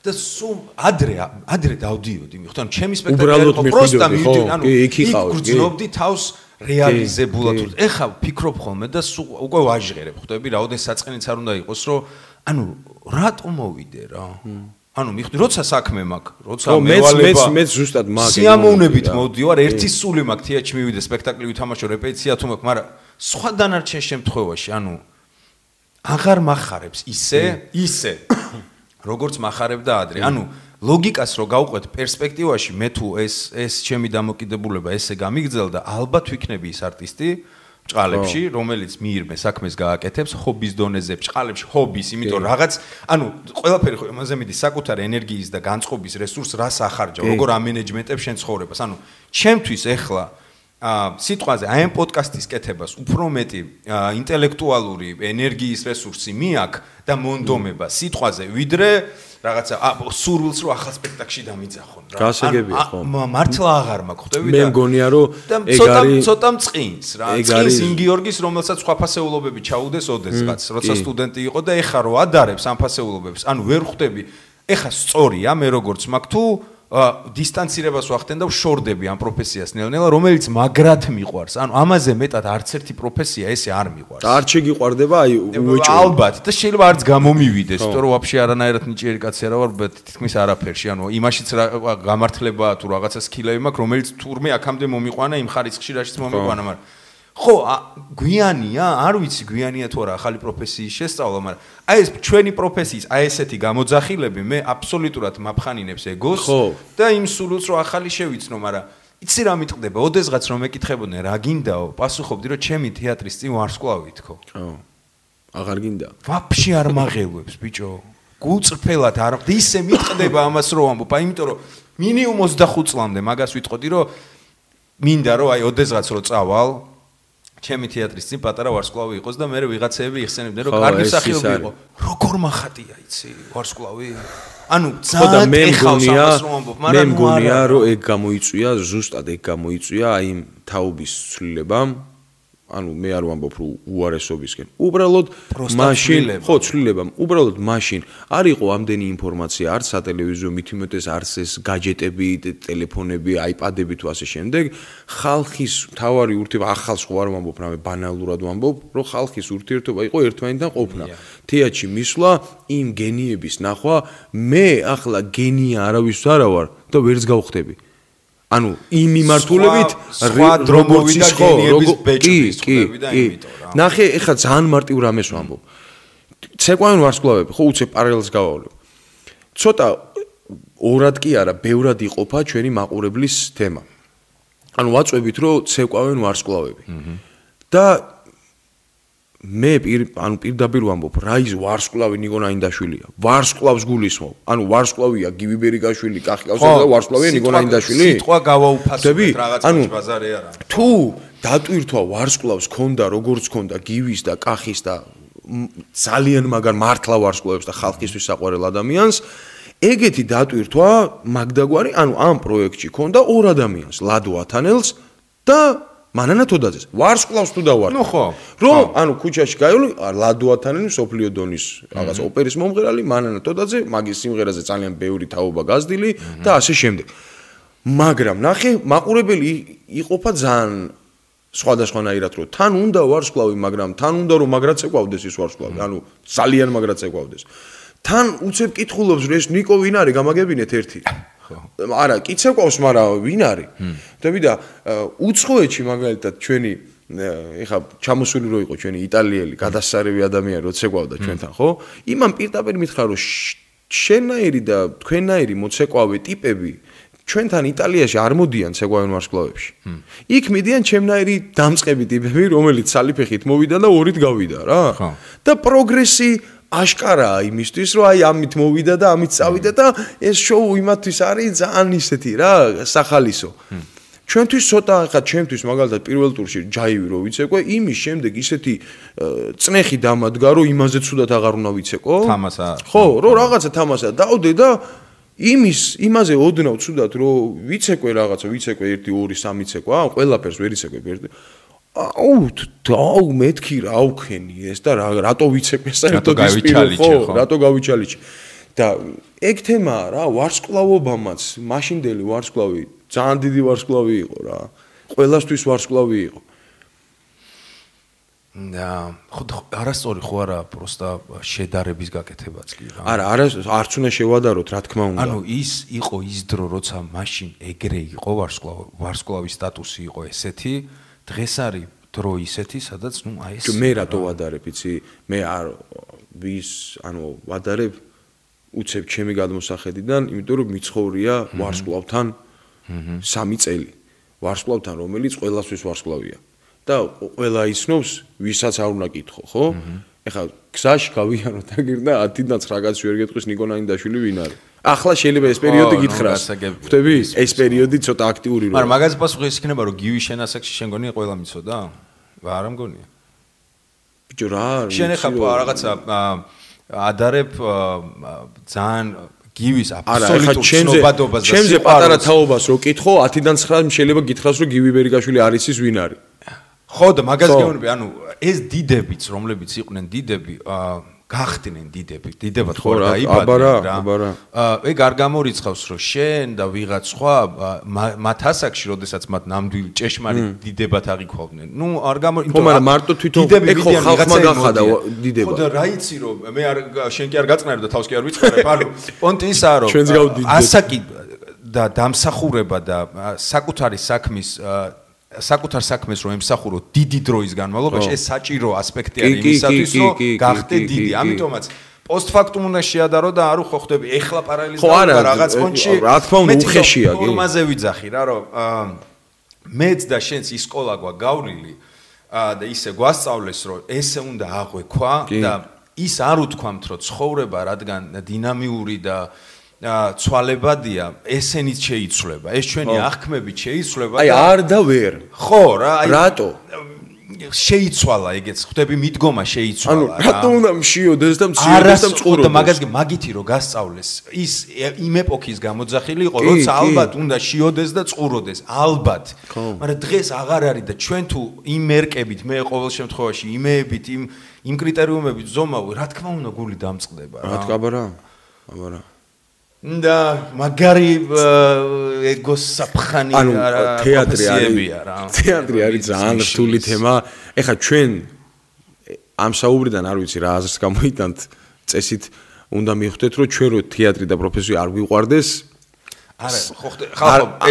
და სულ ადრე დავდიოდი, მიხვდი, ანუ ჩემი სპექტაკლი იყო პროსტა მივდივარ, ანუ იქ გრძნობდი თავს რეალიზებულად ეხა ფიქრობ ხოლმე და უკვე ვაჟღერებ ხვდები რაოდენ საწყენიც არ უნდა იყოს რომ ანუ რატო მოვიდე რა ანუ მიხვდი როცა საქმე მაქვს როცა მევალება მეც ზუსტად მაქვს სიამოვნებით მოვდივარ ერთი სული მაქვს თეატრში მივიდე სპექტაკლი ვითამაშო რეპეტიცია თუ მაქვს მაგრამ სხვა დანარჩენ შემთხვევაში ანუ აღარ მახარებს ისე როგორც მახარებდა ადრე ანუ ლოგიკას რო გავყვეთ პერსპექტივაში მე თუ ეს ჩემი დამოკიდებულება ესე გამიგრძელდა ალბათ ვიქნები ის არტისტი ჭყალებში რომელიც მიირმე საქმეს გააკეთებს ჰობის დონეზე ჭყალებში ჰობის იმიტომ რაღაც ანუ ყველაფერი ხო იმაზე მიდის საკუთარი ენერგიის და განწყობის რესურს რას ახარჯავ როგორ ამენეჯმენტებ შენ ცხოვრებას ანუ ჩემთვის ეხლა სიტყვაზე აი ამ პოდკასტის კეთებას უფრო მეტი ინტელექტუალური ენერგიის რესურსი მიაქვს და მონდომება სიტყვაზე ვიდრე რაღაცა სურვილს რო ახალ სპექტაკლში დამიძახონ რა. გასაგებია ხო. მართლა აღარ მაქვს ხვდები და მე მგონია რომ ეგ არის ცოტა მწყინს რა. წინს იმ გიორგის რომელსაც სხვა ფასეულობები ჩაუდეს ოდესღაც როცა სტუდენტი იყო და ეხა რო ადარებს ამ ფასეულობებს. ანუ ვერ ხვდები. ეხა სწორია მე როგორც მაქვს თუ დისტანცირებას ვახდენ და ვშორდები ამ პროფესიას ნელ-ნელა რომელიც მაგრად მიყვარს. ანუ ამაზე მეტად არც ერთი პროფესია ესე არ მიყვარს. და არ შეგიყვარდება აი უეჭო. ალბათ და შეიძლება არც გამომივიდეს, იმიტომ რომ ვაფშე არანაირად ნიჭიერი კაცი არა ვარ, თითქმის არაფერში. ანუ იმაშიც გამართლებაა თუ რაღაცა სკილები მაქვს, რომელიც თურმე აქამდე მომიყვანა იმ ხარისხში რაშიც მომიყვანა, მაგრამ ხო, გვიანია, არ ვიცი გვიანია თუ არა ახალი პროფესიის შესწავლა, მაგრამ აი ეს ჩვენი პროფესიის აი ესეთი გამოძახილები მე აბსოლუტურად მაფხანინებს ეგოს და იმ სულს რომ ახალი შევიცნო, მაგრამ იცი რა მიტყდება, ოდესღაც რომ მეკითხებოდნენ რა გინდაო, პასუხობდი რომ ჩემი თეატრის წინ ვარსკვლავი თქო. ხო. აღარ გინდა. ვაფშე არ მაღელვებს ბიჭო. გულწრფელად არ ისე მიტყდება ამას რომ ამბობ, იმიტომ რომ მინიმუმ 25 წლამდე მაგას ვიტყოდი რომ მინდა რომ აი ოდესღაც რომ წავალ ჩემი თეატრის წინ პატარა ვარსკვლავი იყოს და მე ვიღაცეები იხსენებდნენ რომ კარგი მსახიობი იყო. როგორ მახატია იცი ვარსკვლავი? ანუ ძალიან ეხავს ამას რომ ამბობ, მაგრამ მე მგონია რომ ეგ გამოიწვია, ზუსტად ეგ გამოიწვია აი იმ თაობის ცვლილებამ. ანუ მე არ ვამბობ რომ უარესობისკენ. უბრალოდ მაშინ ხო ცვლილებამ, უბრალოდ მაშინ არ იყო ამდენი ინფორმაცია, არც სატელევიზიო მითუმეტეს არც ეს გაჯეტები, ტელეფონები, აიპადები თუ ასე შემდეგ. ხალხის თავარი ურთიერთობა ახალს ხო არ ვამბობ, რამე ბანალურად ვამბობ, რომ ხალხის ურთიერთობა იყო ერთმანეთთან ყოფნა. თეატრში მისვლა, იმ გენიების ნახვა, მე ახლა გენია არავის არა ვარ და ვერც გავხდები. ანუ იმ მიმართულებით სხვა დრომოვი და გენიების ბეჭდის ხდები და იმიტომ რა. ნახე, ეხლა ძალიან მარტივ რამეს ვამბობ. ცეკვავენ ვარსკვლავები, ხო უცებ პარალელს გავავლებ. ცოტა ორად კი არა, ბევრად იყოფა ჩვენი მაყურებლის თემა. ანუ ვაწვევით, რომ ცეკვავენ ვარსკვლავები. და მე ანუ პირდაპირ ვამბობ, რა ის ვარსკვლავი ნიკო ნაინდაშვილია. ვარსკვლავს გულისხმობ. ანუ ვარსკვლავია გივი ბერიგაშვილი, კახი კავსაძე და ვარსკვლავია ნიკო ნაინდაშვილი. სიტყვა გავაუფასებთ რაღაც ბაზარი არა. თუ დატვირთვა ვარსკვლავს ქონდა, როგორც ქონდა გივის და კახის და ძალიან მაგარ მართლა ვარსკვლავებს და ხალხისთვის საყვარელ ადამიანს, ეგეთი დატვირთვა მაგდაგვარი, ანუ ამ პროექტში ქონდა ორ ადამიანს, ლადო ათანელს და მანანა თოდაძეს ვარსკვლავს თუ დავარ. ნუ ხო. რომ ანუ ქუჩაში გაივლი ლადო ათანელი სოფლიო დონის რაღაც ოპერის მომღერალი, მანანა თოდაძე, მაგის სიმღერაზე ძალიან ბევრი თაობა გაზრდილი და ასე შემდეგ. მაგრამ ნახე, მაყურებელი იყოფა ძალიან სხვადასხვანაირად რომ თან უნდა ვარსკვლავი, მაგრამ თან უნდა რომ მაგრაც ეკვავდეს ის ვარსკვლავი, ანუ ძალიან მაგრაც ეკვავდეს. თან უცებ კითხულობს რომ ეს ნიკო ვინ არის, გამაგებინეთ ერთი. არა, კიც ეკვავს, მაგრამ ვინ არის? ხვდები და უცხოეთში მაგალითად ჩვენი ეხა ჩამოსული რო იყო ჩვენი იტალიელი გადასარევი ადამიანი როცა ეკვავდა ჩვენთან, ხო? იმან პირდაპირ მითხრა რომ შენაირი და თქვენაირი მოცეკვავე ტიპები ჩვენთან იტალიაში არ მოდიან ცეკვავენ ვარსკვლავებში. იქ მიდიან ჩემნაირი დამწყები ტიპები, რომელიც სალიფეხით მოვიდა და ორით გავიდა რა. და პროგრესი აშკარაა იმისთვის, რომ აი ამით მოვიდა და ამით წავიდა და ეს შოუ იმათთვის არის ძალიან ისეთი რა, სახალისო. ჩვენთვის ცოტა ხა ჩემთვის მაგალითად პირველ ტურში ჯაივი რო ვიცეკვე, იმის შემდეგ ისეთი წნეხი დამადგა, რომ იმაზე ცუდად აღარ უნდა ვიცეკო. თამასა. ხო, რომ რაღაცა თამასა დავდე და იმაზე ოდნავ ცუდად რომ ვიცეკვე რაღაცა, ვიცეკვე 1 2 3 ცეკვა, ყველაფერს ვერ იცეკვე ერთი. აუ მეთქი რა აუქენი ეს და რატო ვიცეკვე საერთოდ ის ხო, რატო გავიჩალიჩი. და ეგ თემაა რა, ვარსკვლავობამაც, მაშინდელი ვარსკვლავი ძალიან დიდი ვარსკვლავი იყო რა. ყველასთვის ვარსკვლავი იყო. და ხო არასწორი ხო არა, просто შედარების გაკეთებაც კი რა. არა, არც უნდა შევადაროთ, რა თქმა უნდა. ანუ ის იყო ის დრო, როცა მაშინ ეგრე იყო ვარსკვლავის სტატუსი იყო ესეთი, დღეს არის დრო ისეთი, სადაც ნუ აი ეს მე რატო ვადარებ, იცი? მე არ ვადარებ უცებ ჩემი გადმოსახედიდან, იმიტომ რომ მიცხოვრია ვარსკვლავთან 3 წელი. ვარსკვლავთან, რომელიც ყველასთვის ვარსკვლავია. და ყველა ისნობს, ვისაც არ უნდა კითხო, ხო? ეხლა გზაში გავიანოთ აგირდა 10-დან 9 კაცი ვერ გეტყვის ნიკო ნაინდაშვილი ვინ არის. ახლა შეიძლება ეს პერიოდი გითხრას. ხვდები? ეს პერიოდი ცოტა აქტიური როა. მაგრამ მაგაზე პასუხი ის იქნება, რომ გივის შენასაკში შენ გონია ყველა მიცოდა? არა მგონია. ბიჭო რა არის? შენ ეხლა რაღაცა ადარებ ძალიან გივის აბსოლუტურ ცნობადობას და ჩემზე პატარა თაობას რო კითხო 10-დან 9 შეიძლება გითხრას რომ გივი ბერიგაშვილი არის ის ვინ არის. ხო და მაგას გეუბნები, ანუ ეს დიდებიც, რომლებიც იყვნენ დიდები, გახდნენ დიდები, დიდებად ხო არ დაიბადნენ რა. ეგ არ გამორიცხავს, რომ შენ და ვიღაც სხვა მათ ასაკში, როდესაც მათ ნამდვილი ჭეშმარიტ დიდებად აღიქვავდნენ. ნუ არ გამორიცხავს. ხო, მაგრამ მარტო თვითონ ეგ ხო ხალხმა გახადა დიდება. ხო და რა იცი რომ მე არ შენ კი არ გაწყნარი და თავს კი არ ვიწყარებ, ანუ პონტი ისაა რომ ასაკი და დამსახურება და საკუთარ საქმეს რომ ემსახურო დიდი დროის განმავლობაში, ეს საჭირო ასპექტი არის იმისათვის, რომ გახდე დიდი. ამიტომაც პოსტფაქტუმ უნდა შეადარო და არ უხდები ეხლა პარალელიზდება რაღაც პონჩი. რა თქმა უნდა უხეშია კი. ფორმაზე ვიძახი რა, რომ მეც და შენც ის სკოლა გვაგავლილი და ისე გვასწავლეს, რომ ესე უნდა აღვექვა და ის არ უთქვამთ, რომ ცხოვრება რადგან დინამიური და ცვალებადია, ესენიც შეიცვლება. ეს ჩვენი აღქმებით შეიცვლება. აი არ და ვერ. ხო რა, აი რატო? შეიცვალა ეგეც, ხვდები მიდგომა შეიცვალა რა. რატო უნდა მშიოდეს და მციოდეს და მწყურობდეს? და მაგითი რომ გასწავლეს, ის იმ ეპოქის გამოძახილი იყო, როცა ალბათ უნდა შიოდეს და წყუროდეს, ალბათ. მაგრამ დღეს აღარ არის და ჩვენ თუ იმ მერკებით, მე ყოველ შემთხვევაში იმეებით, იმ კრიტერიუმებით ზომავი, რა თქმა უნდა გული დამწყდება რა. რა თქმა აბარა. და მაგარი ეგოს საფხანი პროფესიებია რა. თეატრი არის ძალიან რთული თემა. ეხლა ჩვენ ამ საუბრიდან არ ვიცი რა აზრს გამოიტანთ, წესით უნდა მიხვდეთ, რომ ჩვენ რო თეატრი და პროფესია არ გვიყვარდეს. არა, ხო,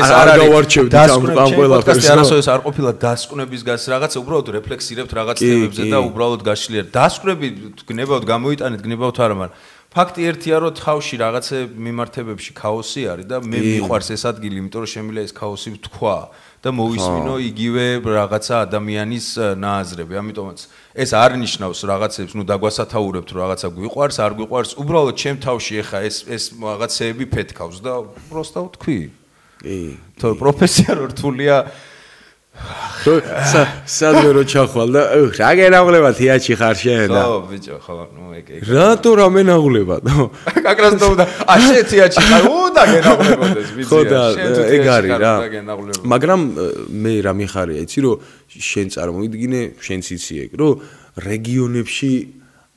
ეს არ გავარჩევთ ამ ყველაფერს. არასოდეს არ ყოფილა დასკვნების გას რაღაცა, უბრალოდ რეფლექსირებთ რაღაც თემებზე და უბრალოდ გაშლიერთ. დასკვნები გნებავთ გამოიტანეთ, გნებავთ არა, მაგრამ ფაქტი ერთია, რომ თავში რაღაცე მიმართებებში ქაოსი არის და მე მიყვარს ეს ადგილი, იმიტომ რომ შემიძლია ეს ქაოსი ვთქვა და მოვისმინო იგივე რაღაცა ადამიანის ნააზრები. ამიტომაც ეს არ ნიშნავს რაღაცებს, ნუ დაგვასათაურებთ, რომ რაღაცა გვიყვარს, არ გვიყვარს, უბრალოდ ჩემ თავში ეხა ეს რაღაცეები ფეთქავს და პროსტა ვთქვი. კი. თორე პროფესია რთულია. სადმე რო ჩახვალ და რა გენაღლება თეატრში ხარ შენ და ხო ბიჭო ხო ნუ ეგ რატო რამე ნაღლება კაკრას და შენ თეატრში ხარ და გენაღლებოდეს ბიჭო ხო და ეგ არის რა მაგრამ მე რა მიხარია იცი რომ შენ წარმოვიდგინე შენც იცი ეგ რომ რეგიონებში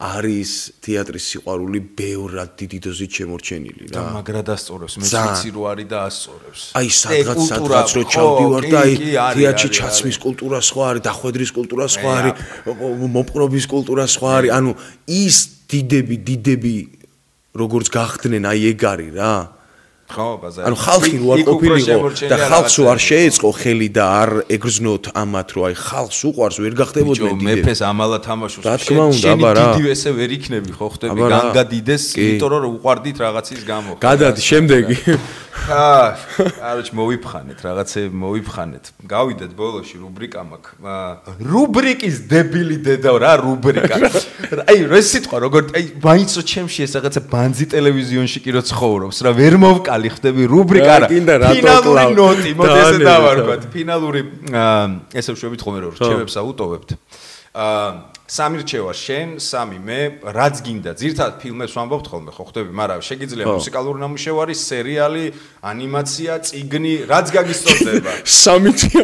არის თეატრის სიყვარული ბევრად დიდი დოზით შემორჩენილი რა. და მაგრა დასწორებს, მეც ვიცი რო არის და ასწორებს. აი სადღაც რო ჩავდივარ და აი თეატრში ჩაცმის კულტურა სხვა არის, დახვედრის კულტურა სხვა არის, მოპყრობის კულტურა სხვა არის. ანუ ის დიდები როგორც გახდნენ, აი ეგ არის რა. ხო, ბაზარი. ანუ ხალხი რო არ ყოფილიყო და ხალხს არ შეეწყო ხელი და არ ეგრძნოთ ამათ, რომ აი ხალხს უყვარს ვერ გახდებოდნენ დიდები. მეფეს ამალა თამაშობს. რა თქმა უნდა, აბა რა. დიდი ესე ვერ იქნები, ხო ხდები? განგადიდეს, იმიტომ რომ უყვარდით რაღაცის გამო. გადადი შემდეგი. აროჩ მოვიფხანეთ, რაღაცები მოვიფხანეთ. გავიდეთ ბოლოში რუბრიკა მაქვს. რუბრიკის დებილი დედა რა რუბრიკა. აი ეს სიტყვა როგორ აი მაინც რო ჩემში ეს რაღაცა ბანძი ტელევიზიონში კი რო ცხოვრობს რა ვერ მოვკალი ხდები რუბრიკა რა. ფინალური ნოტი, მოდი ესე დავარქვათ. ფინალური ესე ვშვებით ხოლმე რომ რჩევებს აუტოვებთ. სამი რჩევა შენ, სამი მე, რაც გინდა. ძირთად ფილმებს ვამბობთ ხოლმე, ხო ხდები, მაგრამ შეგიძლია მუსიკალური ნამუშევარი, სერიალი, ანიმაცია, წიგნი, რაც გაგისწორდება. სამი თვე.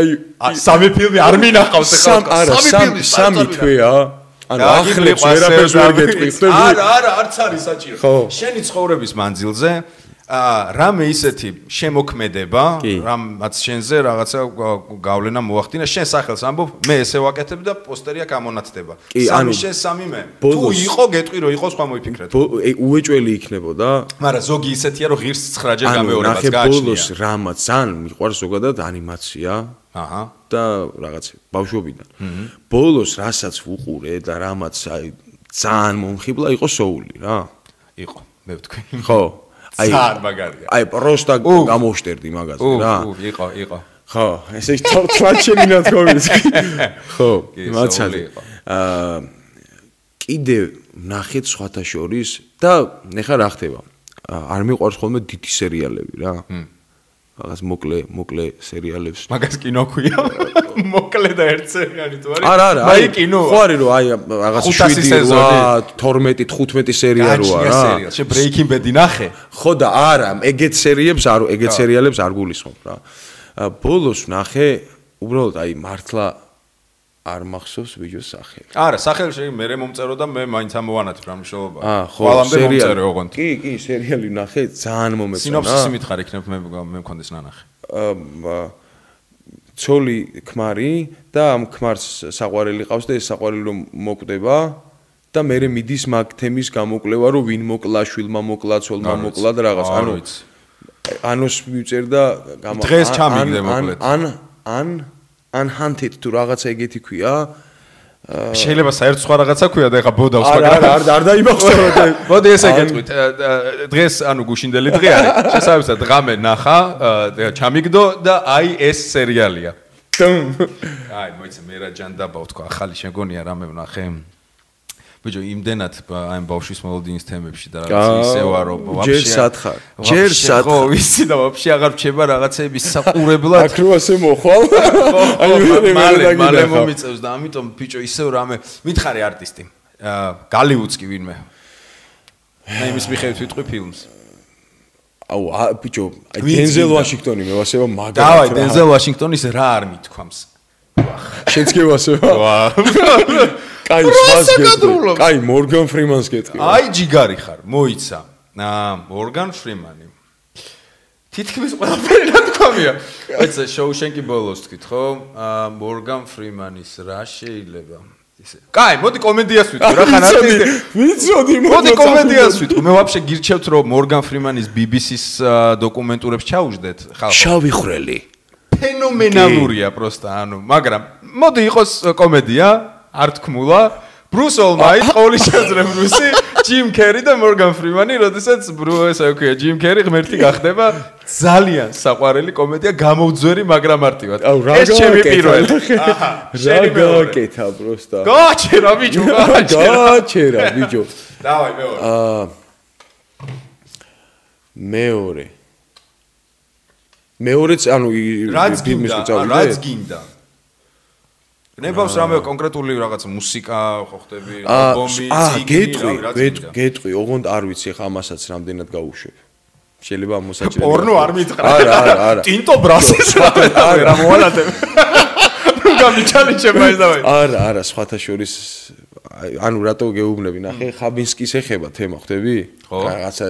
აი, სამი ფილმი არ მინახავს ახლა. სამი თვეა. ანუ ახლებს ვერაფერს ვერ გეტყვის. არა, არც არის საჭირო. შენი ცხოვრების მანძილზე რამე ისეთი შემოქმედება, რამაც შენზე რაღაცა გავლენა მოახდინა, შენ სახელს ამბობ, მე ესე ვაკეთებ და პოსტერი აქ ამონათდება. სამი შენ, სამი მე. თუ იყო, გეტყვი რომ იყო, სხვა მოიფიქრეთ. უეჭველი იქნებოდა. მაგრამ ზოგი ისეთია რომ ღირს 9-ჯერ გამეორებას გააჩნია. ანუ ბოლოს რამაც ძალიან მიყვარს ზოგადად ანიმაცია. აჰა. და რაღაც ბავშვობიდან. ბოლოს რასაც ვუყურე და რამაც აი ძალიან მომხიბლა იყო სოული რა. იყო, მე ვთქვი. ხო. აი მაგარია. აი პროსტა გამოვშტერდი მაგაზე რა. იყო. ხო, ესე თლაჩენი ნათქვამის. ხო, მაცალე. კიდე ნახეთ სხვათა შორის და ნახა რა ხდება. არ მიყვარს ხოლმე დიდი სერიალები რა. რაღაც მოკლე სერიალებს. მაგას კინო ქვია. მოკლე და ერთ სერიალი თუ არის? არა. აი კინო. ხო არის რომ აი რაღაც 7 8 12 15 სერია როა რა. შე Breaking Bad-ი ნახე? ხო და არა, ეგეთ სერიალებს არ გულისხმობ რა. ბოლოს ნახე, უბრალოდ აი მართლა არ მახსოვს ვიჯოს სახელი. არა, სახელი მე მომწერო და მე მაინც ამოვანათებ რა მნიშვნელობა. ყველამდე მომწერე ოღონდ. კი, სერიალი ნახე, ძალიან მომეწონა. სინოფსისი მითხარ იქნებ მე მქონდეს ნანახი. ცოლი ქმარი და ამ ქმარს საყვარელი ყავს და ეს საყვარელი რომ მოკვდება და მე მიდის მაგ თემის გამოკვლევა რომ ვინ მოკლა, შვილმა მოკლა, ცოლმა მოკლა და რაღაც. ანუ ანოს მივწერდა დღეს ჩამიგდე მოკლედ. Unhunted თუ რაღაცა ეგეთი ქვია. შეიძლება საერთოდ სხვა რაღაცა ქვია და ეხა ბოდავს მაგრამ არ დაიმახსოვროთ. მოდი ესე გეტყვით. დღეს ანუ გუშინდელი დღე არის. შესაბამისად ღამე ნახა, ჩამიგდო და აი ეს სერიალია. აი მოიცა მე რა ჯანდაბა ვთქვა, ახალი შეგონია რამე ვნახე. ბიჭო, იმდენად აი ბავშვის მოლოდინის თემებში და რაღაც ისევა რომ ჯერ სათხარ. ხო, ვიცი და ვაფშე აღარ რჩება რაღაცები საყურებლად. აქ რო ასე მოხვალ. აი მალე მომიწევს და ამიტომ ბიჭო ისევ რამე მითხარი არტისტი. გალივუდს კი ვინმე. აი იმის მიხედვით ვიტყვი ფილმს. აუ ბიჭო, აი დენზელ ვაშინგტონი მე ვასება მაგარი. დავაი დენზელ ვაშინგტონის რა არ მithქვამს. შენც კი ვასება? კაი სხვას გეტყვი. კაი მორგან ფრიმანს გეტყვი. აი ჯიგარი ხარ, მოიცა. მორგან ფრიმანი. თითქმის ყველაფერი ნათქვამია. აიცა შოუშენკი ბოლოს თქვით, ხო? მორგან ფრიმანის რა შეიძლება? ისე. კაი, მოდი კომედიას ვიტყვი რა ხან არტისტი. ვიცოდი მოდი კომედიას ვიტყვი. მე ვაფშე გირჩევთ რომ მორგან ფრიმანის BBC-ს დოკუმენტურებს ჩაუждეთ ხალხო. შავი ხვრელი. ფენომენალურია პროსტა, ანუ, მაგრამ მოდი იყოს კომედია, არ თქმულა. ბრუს ოლმაიტ, ყოველი შესაძლებლობისი, ჯიმ კერი და მორგან ფრიმანი, როდესაც ესე ვქვია, ჯიმ კერი ღმერთი გახდება, ძალიან საყვარელი კომედია, გამოუძვერი, მაგრამ მარტივად. ეს ჩემი პირველი. აჰა, რა გააკეთა პროსტა. გააჩერა ბიჭო, გააჩერა ბიჭო. დავაი მეორე. მეორეც ანუ რაც გინდა. ნებავს რამე კონკრეტული რაღაც მუსიკა ხო ხდები, ალბომი, წიგნი, გეტყვი, ოღონდ არ ვიცი ხა ამასაც რამდენად გავუშვებ. შეიძლება მოსაჭრელი. პორნო არ მითხრა. არა. ტინტო ბრასის რა მოალათებ. გამიჩალიჩება ეს დავაი. არა, სხვათა შორის ანუ რატო გეუბნები ნახე ხაბინსკის ეხება თემა ხვდები? რაღაცა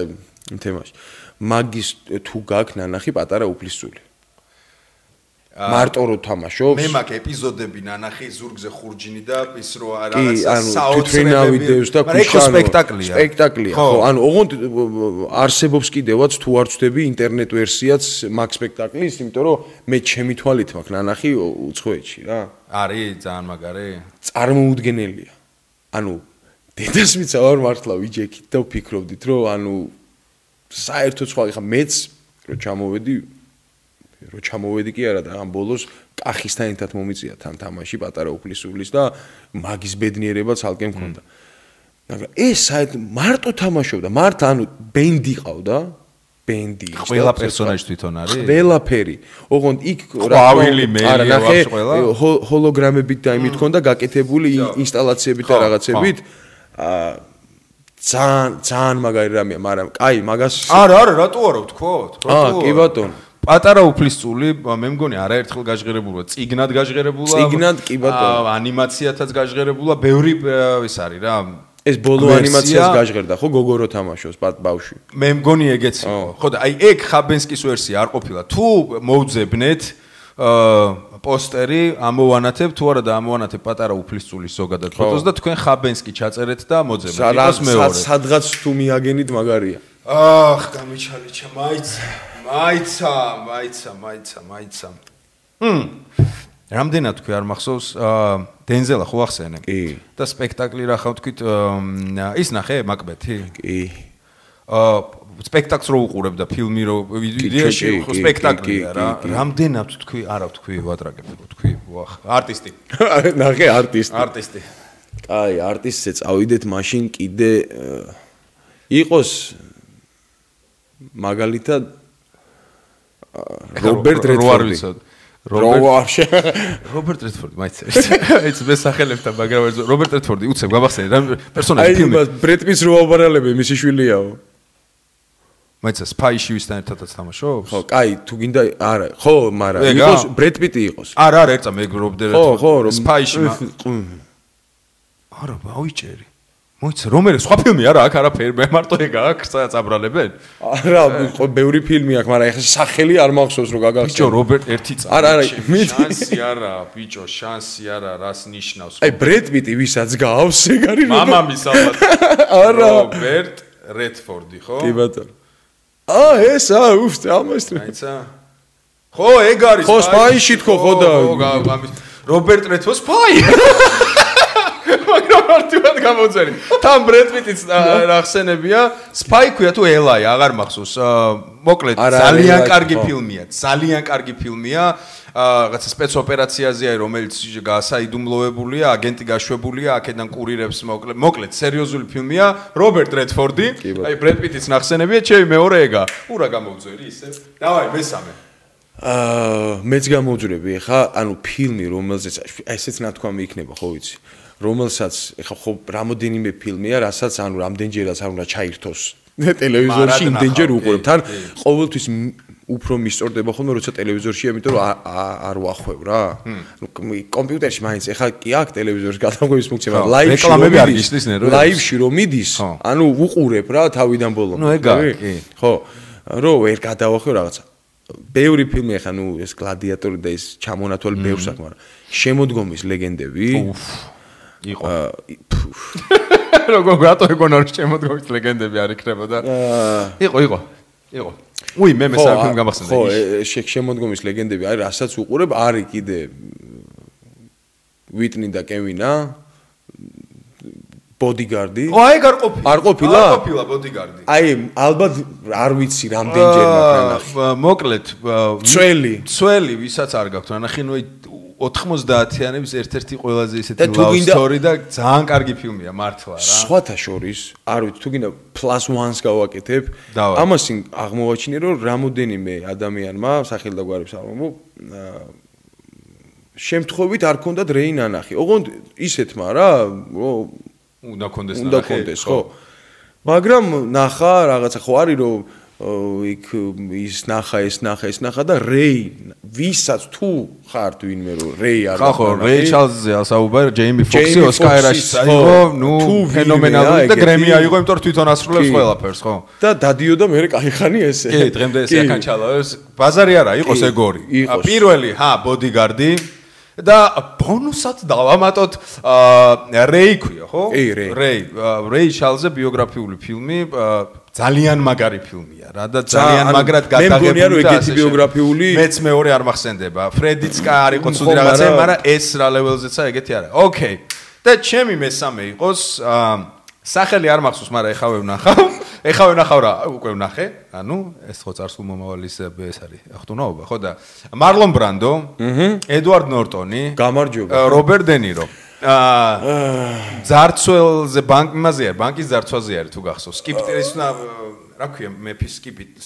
იმ თემაში. მაგის თუ გაქვს ნანახი პატარა უფლისწული. მარტო რო თამაშობს. მე მაგ ეპიზოდები ნანახი ზურგზე ხურჯინი და ის რო რაღაცა საოცრებები დევს და ქუშანო. სპექტაკლია. ხო, ანუ ოღონდ არსებობს კიდევაც თუ არ ვწდები ინტერნეტ ვერსიაც მაგ სპექტაკლის, იმიტომ რომ მე ჩემი თვალით მაქვს ნანახი უცხოეთში რა. არის ძალიან მაგარი. წარმოუდგენელია. ანუ დედასმიც არ მართლა ვიჯექით და ვფიქრობდით რომ ანუ საერთოდ სხვა ხა მეც რო ჩამოვედი კი არა და ამ ბოლოს კახისთან ერთად მომიწია თან თამაში პატარა უფლისულის და მაგის ბედნიერება ცალკე მქონდა. მაგრამ ეს საერთოდ მარტო თამაშობდა, მარტო ანუ ბენდი ყავდა, ბენდი. ყველა პერსონაჟი თვითონ არის? ყველაფერი. ოღონდ იქ ყვავილი მეილი აქვს ყველა. ჰოლოგრამებით და იმით ქონდა გაკეთებული ინსტალაციებით და რაღაცებით. ძალიან მაგარი რამეა, მაგრამ კაი, მაგას არა, რატო არა ვთქვოთ? კი ბატონო. პატარა უფლისწული მე მგონი არაერთხელ გაჟღერებულა, წიგნად გაჟღერებულა. წიგნად კი ბატონო. ანიმაციათაც გაჟღერებულა, ბევრი ის არის რა. ეს ბოლო ანიმაციას გაჟღერდა ხო გოგორო თამაშობს ბავშვი. მე მგონი ეგეც იყო. ხო და აი ეგ ხაბენსკის ვერსია არ ყოფილა. თუ მოვძებნეთ პოსტერი ამოვანათებ თუ არა და ამოვანათებ პატარა უფლისწულის ზოგადად ფოტოს და თქვენ ხაბენსკი ჩაწერეთ და მოძებნეთ. იყოს მეორე. სადღაც თუ მიაგენით მაგარია. გამიჩალიჩა მაიცა. რამდენად თქვი არ მახსოვს დენზელა ხო ახსენე? კი. და სპექტაკლი რა ხავ თქვით ის ნახე მაკბეთი? კი. სპექტაკლს რო უყურებ და ფილმი რო ვიდეოში ხო სპექტაკლია რა. რამდენად თქვი არა თქვი ვატრაგებ თქვი ვახ არტისტი. ნახე არტისტი. კაი, არტისტზე წავიდეთ მაშინ კიდე იყოს მაგალითად რობერტ რედფორდი. რობერტ რედფორდი მაინც მე სახელებთან მაგრამ რობერტ რედფორდი უცებ გამახსენე რა პერსონაჟი ფილმი ბრედ პიტს რო ავარალები მისი შვილიაო მაინც სპაიში ვისთან ერთადაც თამაშობს ხო კაი თუ გინდა არა ხო მაგრამ იყოს ბრედ პიტი იყოს არა ერწა მე რობერტ რედფორდი სპაიში არა ბავიჭერი მოიცა რომელი სხვა ფილმი არა აქ არაფერი მე მარტო ეგ აქვს წაბრალებენ არა ბევრი ფილმი აქვს მაგრამ ეხლა სახელი არ მახსოვს რომ გაგახსენე ბიჭო რობერტ ერთი წამი არა შანსი არა ბიჭო შანსი არა რას ნიშნავს აი ბრედ პიტი ვისაც გავს ეგ არის მამამის ალბათ არა რობერტ რედფორდი ხო კი ბატონო ეს უფ ამას აიცა ხო ეგ არის ხო სპაიში თქო ხო და რობერტ რედფორდი სპაი მაგრამ არტივად გამოძერი. თან ბრედ პიტიც ახსენებია, სპაი ქვია თუ ელაი, აღარ მახსოვს. მოკლედ, ძალიან კარგი ფილმია. ძალიან კარგი ფილმია. რაღაცა სპეცოპერაციაზეა, რომელიც გასაიდუმლოებულია, აგენტი გაშვებულია, აქედან კურირებს მოკლედ, სერიოზული ფილმია. რობერტ რედფორდი, აი ბრედ პიტიც ნახსენებია, ჩემი მეორე ეგა. ურა გამოძერი ისე. დავაი, მესამე. მეც გამოვძვრები ხა, ანუ ფილმი, რომელზეც ესეც ნათქვამი იქნება, ხო ვიცი. რომელსაც ეხა ხო რამოდენიმე ფილმია, რასაც ანუ რამდენჯერაც არ უნდა ჩაირთოს ტელევიზორში, იმდენჯერ უყურებ. თან ყოველთვის უფრო მისწორდება ხოლმე როცა ტელევიზორშია, იმიტომ რომ არ ვახვევ რა. კომპიუტერში მაინც ეხა კი აქვს ტელევიზორის გადაღების ფუნქცია, მაგრამ ლაივში რომ მიდის, ანუ უყურებ რა თავიდან ბოლომდე. ნუ ეგა კი. ხო, რომ ვერ გადავახვევ რაღაცა. ბევრი ფილმი ეხა ნუ ეს გლადიატორი და ეს ჩამონათვალი ბევრს აქვს, მაგრამ შემოდგომის ლეგენდები იყო როგორ გატო ეგონა რომ შემოდგომის ლეგენდები არ იქნებოდა იყო უი მე მესამე ფილმი გამახსენდა ხო შემოდგომის ლეგენდები არის რასაც უყურებ არის კიდე ვიტნი და კევინა ბოდიგარდი აი არ ყოფილა ბოდიგარდი აი ალბათ არ ვიცი რამდენჯერ მაგ მოკლედ ცველი ვისაც არ გაქვთ ნახე ნუ 90-იანების ერთ-ერთი ყველაზე ისეთი love story და ძალიან კარგი ფილმია მართლა რა. სხვათა შორის, არ ვიცი, თუ გინდა +1-ს გავაკეთებ, ამასინ აღმოვაჩინე რომ რამოდენიმე ადამიანმა სახელ და გვარებს არ მომო შემთხვევით არ ქონდათ რეი ნანახი. ოღონდ ისეთმა რა, უნდა კონდეს ნახე. ხო. მაგრამ ნახა რაღაცა ხო არის რომ იქ ის ნახა და რეი ვისაც თუ ხარ ვინმე რომ რეი არ ხო რეი ჩარლზზე ასაუბარ ჯეიმი ფოქსი ოსკარაში აიღო ნუ ფენომენალური და გრემი აიღო იმიტომ რომ თვითონ ასრულებს ყველაფერს ხო და დადიოდა მე კაიხანი ესე კი დღემდე ესე აკანჩალავს ბაზარი არა იყოს ეგორი პირველი ბოდიგარდი და ბონუსად დავამატოთ რეი ქვია ხო რეი ჩარლზზე ბიოგრაფიული ფილმი ძალიან მაგარი ფილმია რა და ძალიან მაგრად გადაღებული და ეგეთი ბიოგრაფიული მეც მეორე არ მახსენდება ფრედიც არ იყო ცუდი რაღაცა მაგრამ ეს რა ლეველზეცა ეგეთი არა ოკეი და ჩემი მესამე იყოს სახელი არ მახსოვს მაგრამ ეხავე ვნახავ რა უკვე ვნახე ანუ ეს ხო წარსულ მომავალის ეს არის ახტუნაობა ხო და მარლონ ბრანდო ედვარდ ნორტონი გამარჯობა რობერტ დე ნირო ძარცველზე ბანკის ძარცვაზე არის თუ გახსოვს სკიპტრის რა ქვია მეფის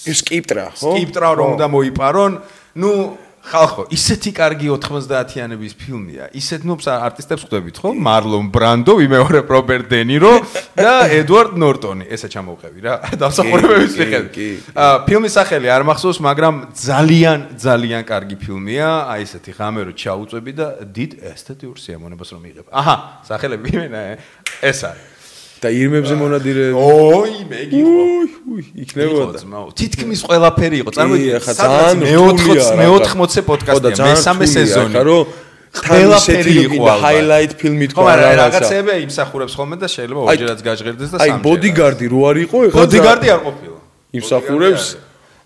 სკიპტრა რომ უნდა მოიპარონ ნუ ხალხო ისეთი კარგი 90-იანების ფილმია ისეთ ნუ არტისტებს ხვდებით ხო მარლონ ბრანდო ვიმეორებ რობერტ დე ნირო და ედვარდ ნორტონი ესა ჩამოვყევი რა დამსახურებების მიხედვით ფილმის სახელი არ მახსოვს მაგრამ ძალიან კარგი ფილმია აი ესეთი ღამე რო ჩაუწვევი და დიდ ესთეტიურ სიამოვნებას რომ მიიღებ აჰა სახელები იმენა ეს არის და ირმებზე მონადირე ოი მეგიღო იქნებოდა თითქმის ყველაფერი იყო წარმოიდგინე სადღაც მე-80-ე პოდკასტია მესამე სეზონი ყველაფერი იყო ჰაილაით ფილმი თქვა რა რაღაცეები იმსახურებს ხოლმე და შეიძლება ორჯერაც გაჟღერდეს და სამჯერ აი ბოდიგარდი რო არ იყო ეხლა ბოდიგარდი არ ყოფილა იმსახურებს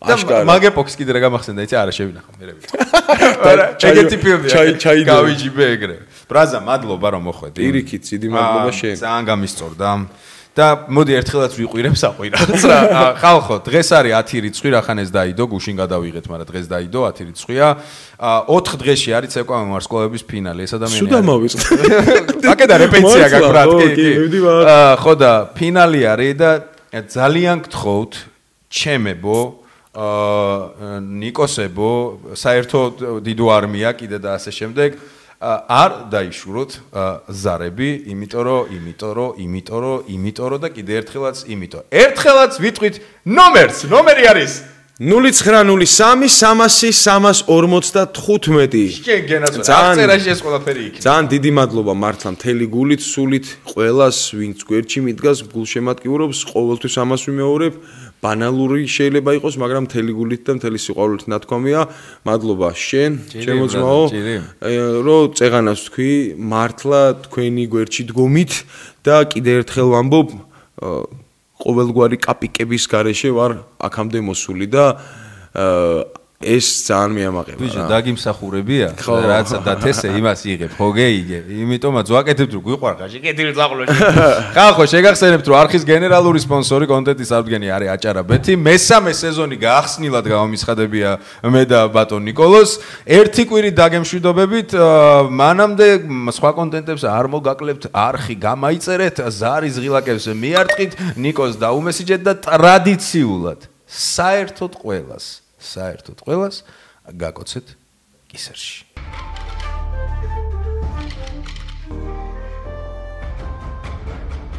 აშკარა მაგეპოქს კიდე რა გამახსენდა იცი არა შევინახო მე რა ეგეთი ფილმია გავიჯიბე ეგრე ბრაზა მადლობა რომ მოხვედი პირიქით დიდი მადლობა შენ ძალიან გამისწორდა და მოდი ერთხელაც ვიყვირებ საყვი რაღაც რა ხალხო დღეს არის 10 რიცხვი რახან ეს დაიდო გუშინ გადავიღეთ მაგრამ დღეს დაიდო 10 რიცხვია 4 დღეში არის ცეკვავენ ვარსკვლავების ფინალი ეს ადამიანი სულ დამავიწყდა აკედა რეპეტიცია გაქვს ბრატ კი ხო და ფინალი არის და ძალიან გთხოვთ ჩემებო ნიკოსებო საერთოდ დიდო არმია კიდე და ასე შემდეგ არ დაიშუროთ ზარები იმიტომ და კიდე ერთხელაც ვიტყვით ნომერი არის 0903-300-345 შენ გენაცვალე აღწერაში ეს ყველაფერი იქნება ძალიან დიდი მადლობა მართლა მთელი გულით სულით ყველას ვინც გვერდში მიდგას გულშემატკივრობს ყოველთვის ამას ვიმეორებ ბანალური შეიძლება იყოს მაგრამ მთელი გულით და მთელი სიყვარულით ნათქვამია მადლობა შენ ჩემო ძმაო რომ წეღანას თქვი მართლა თქვენი გვერდში დგომით და კიდე ერთხელ ვამბობ ყოველგვარი კაპიკების გარეშე ვარ აქამდე მოსული და ეს ძალიან მიამაყება. ბიჭო, დაგიმსახურებია? რაც დათესე იმას იღებ, ხო გეიგე? იმიტომაც ვაკეთებ თუ გვიყვარ ხაში, კეთილი წაღლოში. ხალხო, შეგახსენებთ რომ არხის გენერალური სპონსორი კონტენტის აღდგენი არის აჭარაბეთი. მესამე სეზონი გაახსნილად გამომისხადებია მე და ბატონ ნიკოლოს. ერთი კვირი დაგემშვიდობებით, მანამდე სხვა კონტენტებს არ მოგაკლებთ, არხი გამაიწერეთ, ზარის ღილაკებს მიარტყით, ნიკოს დაუმესიჯეთ და ტრადიციულად საერთოდ ყველას გაკოცეთ კისერში.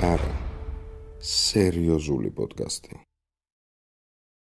არა, სერიოზული პოდკასტი.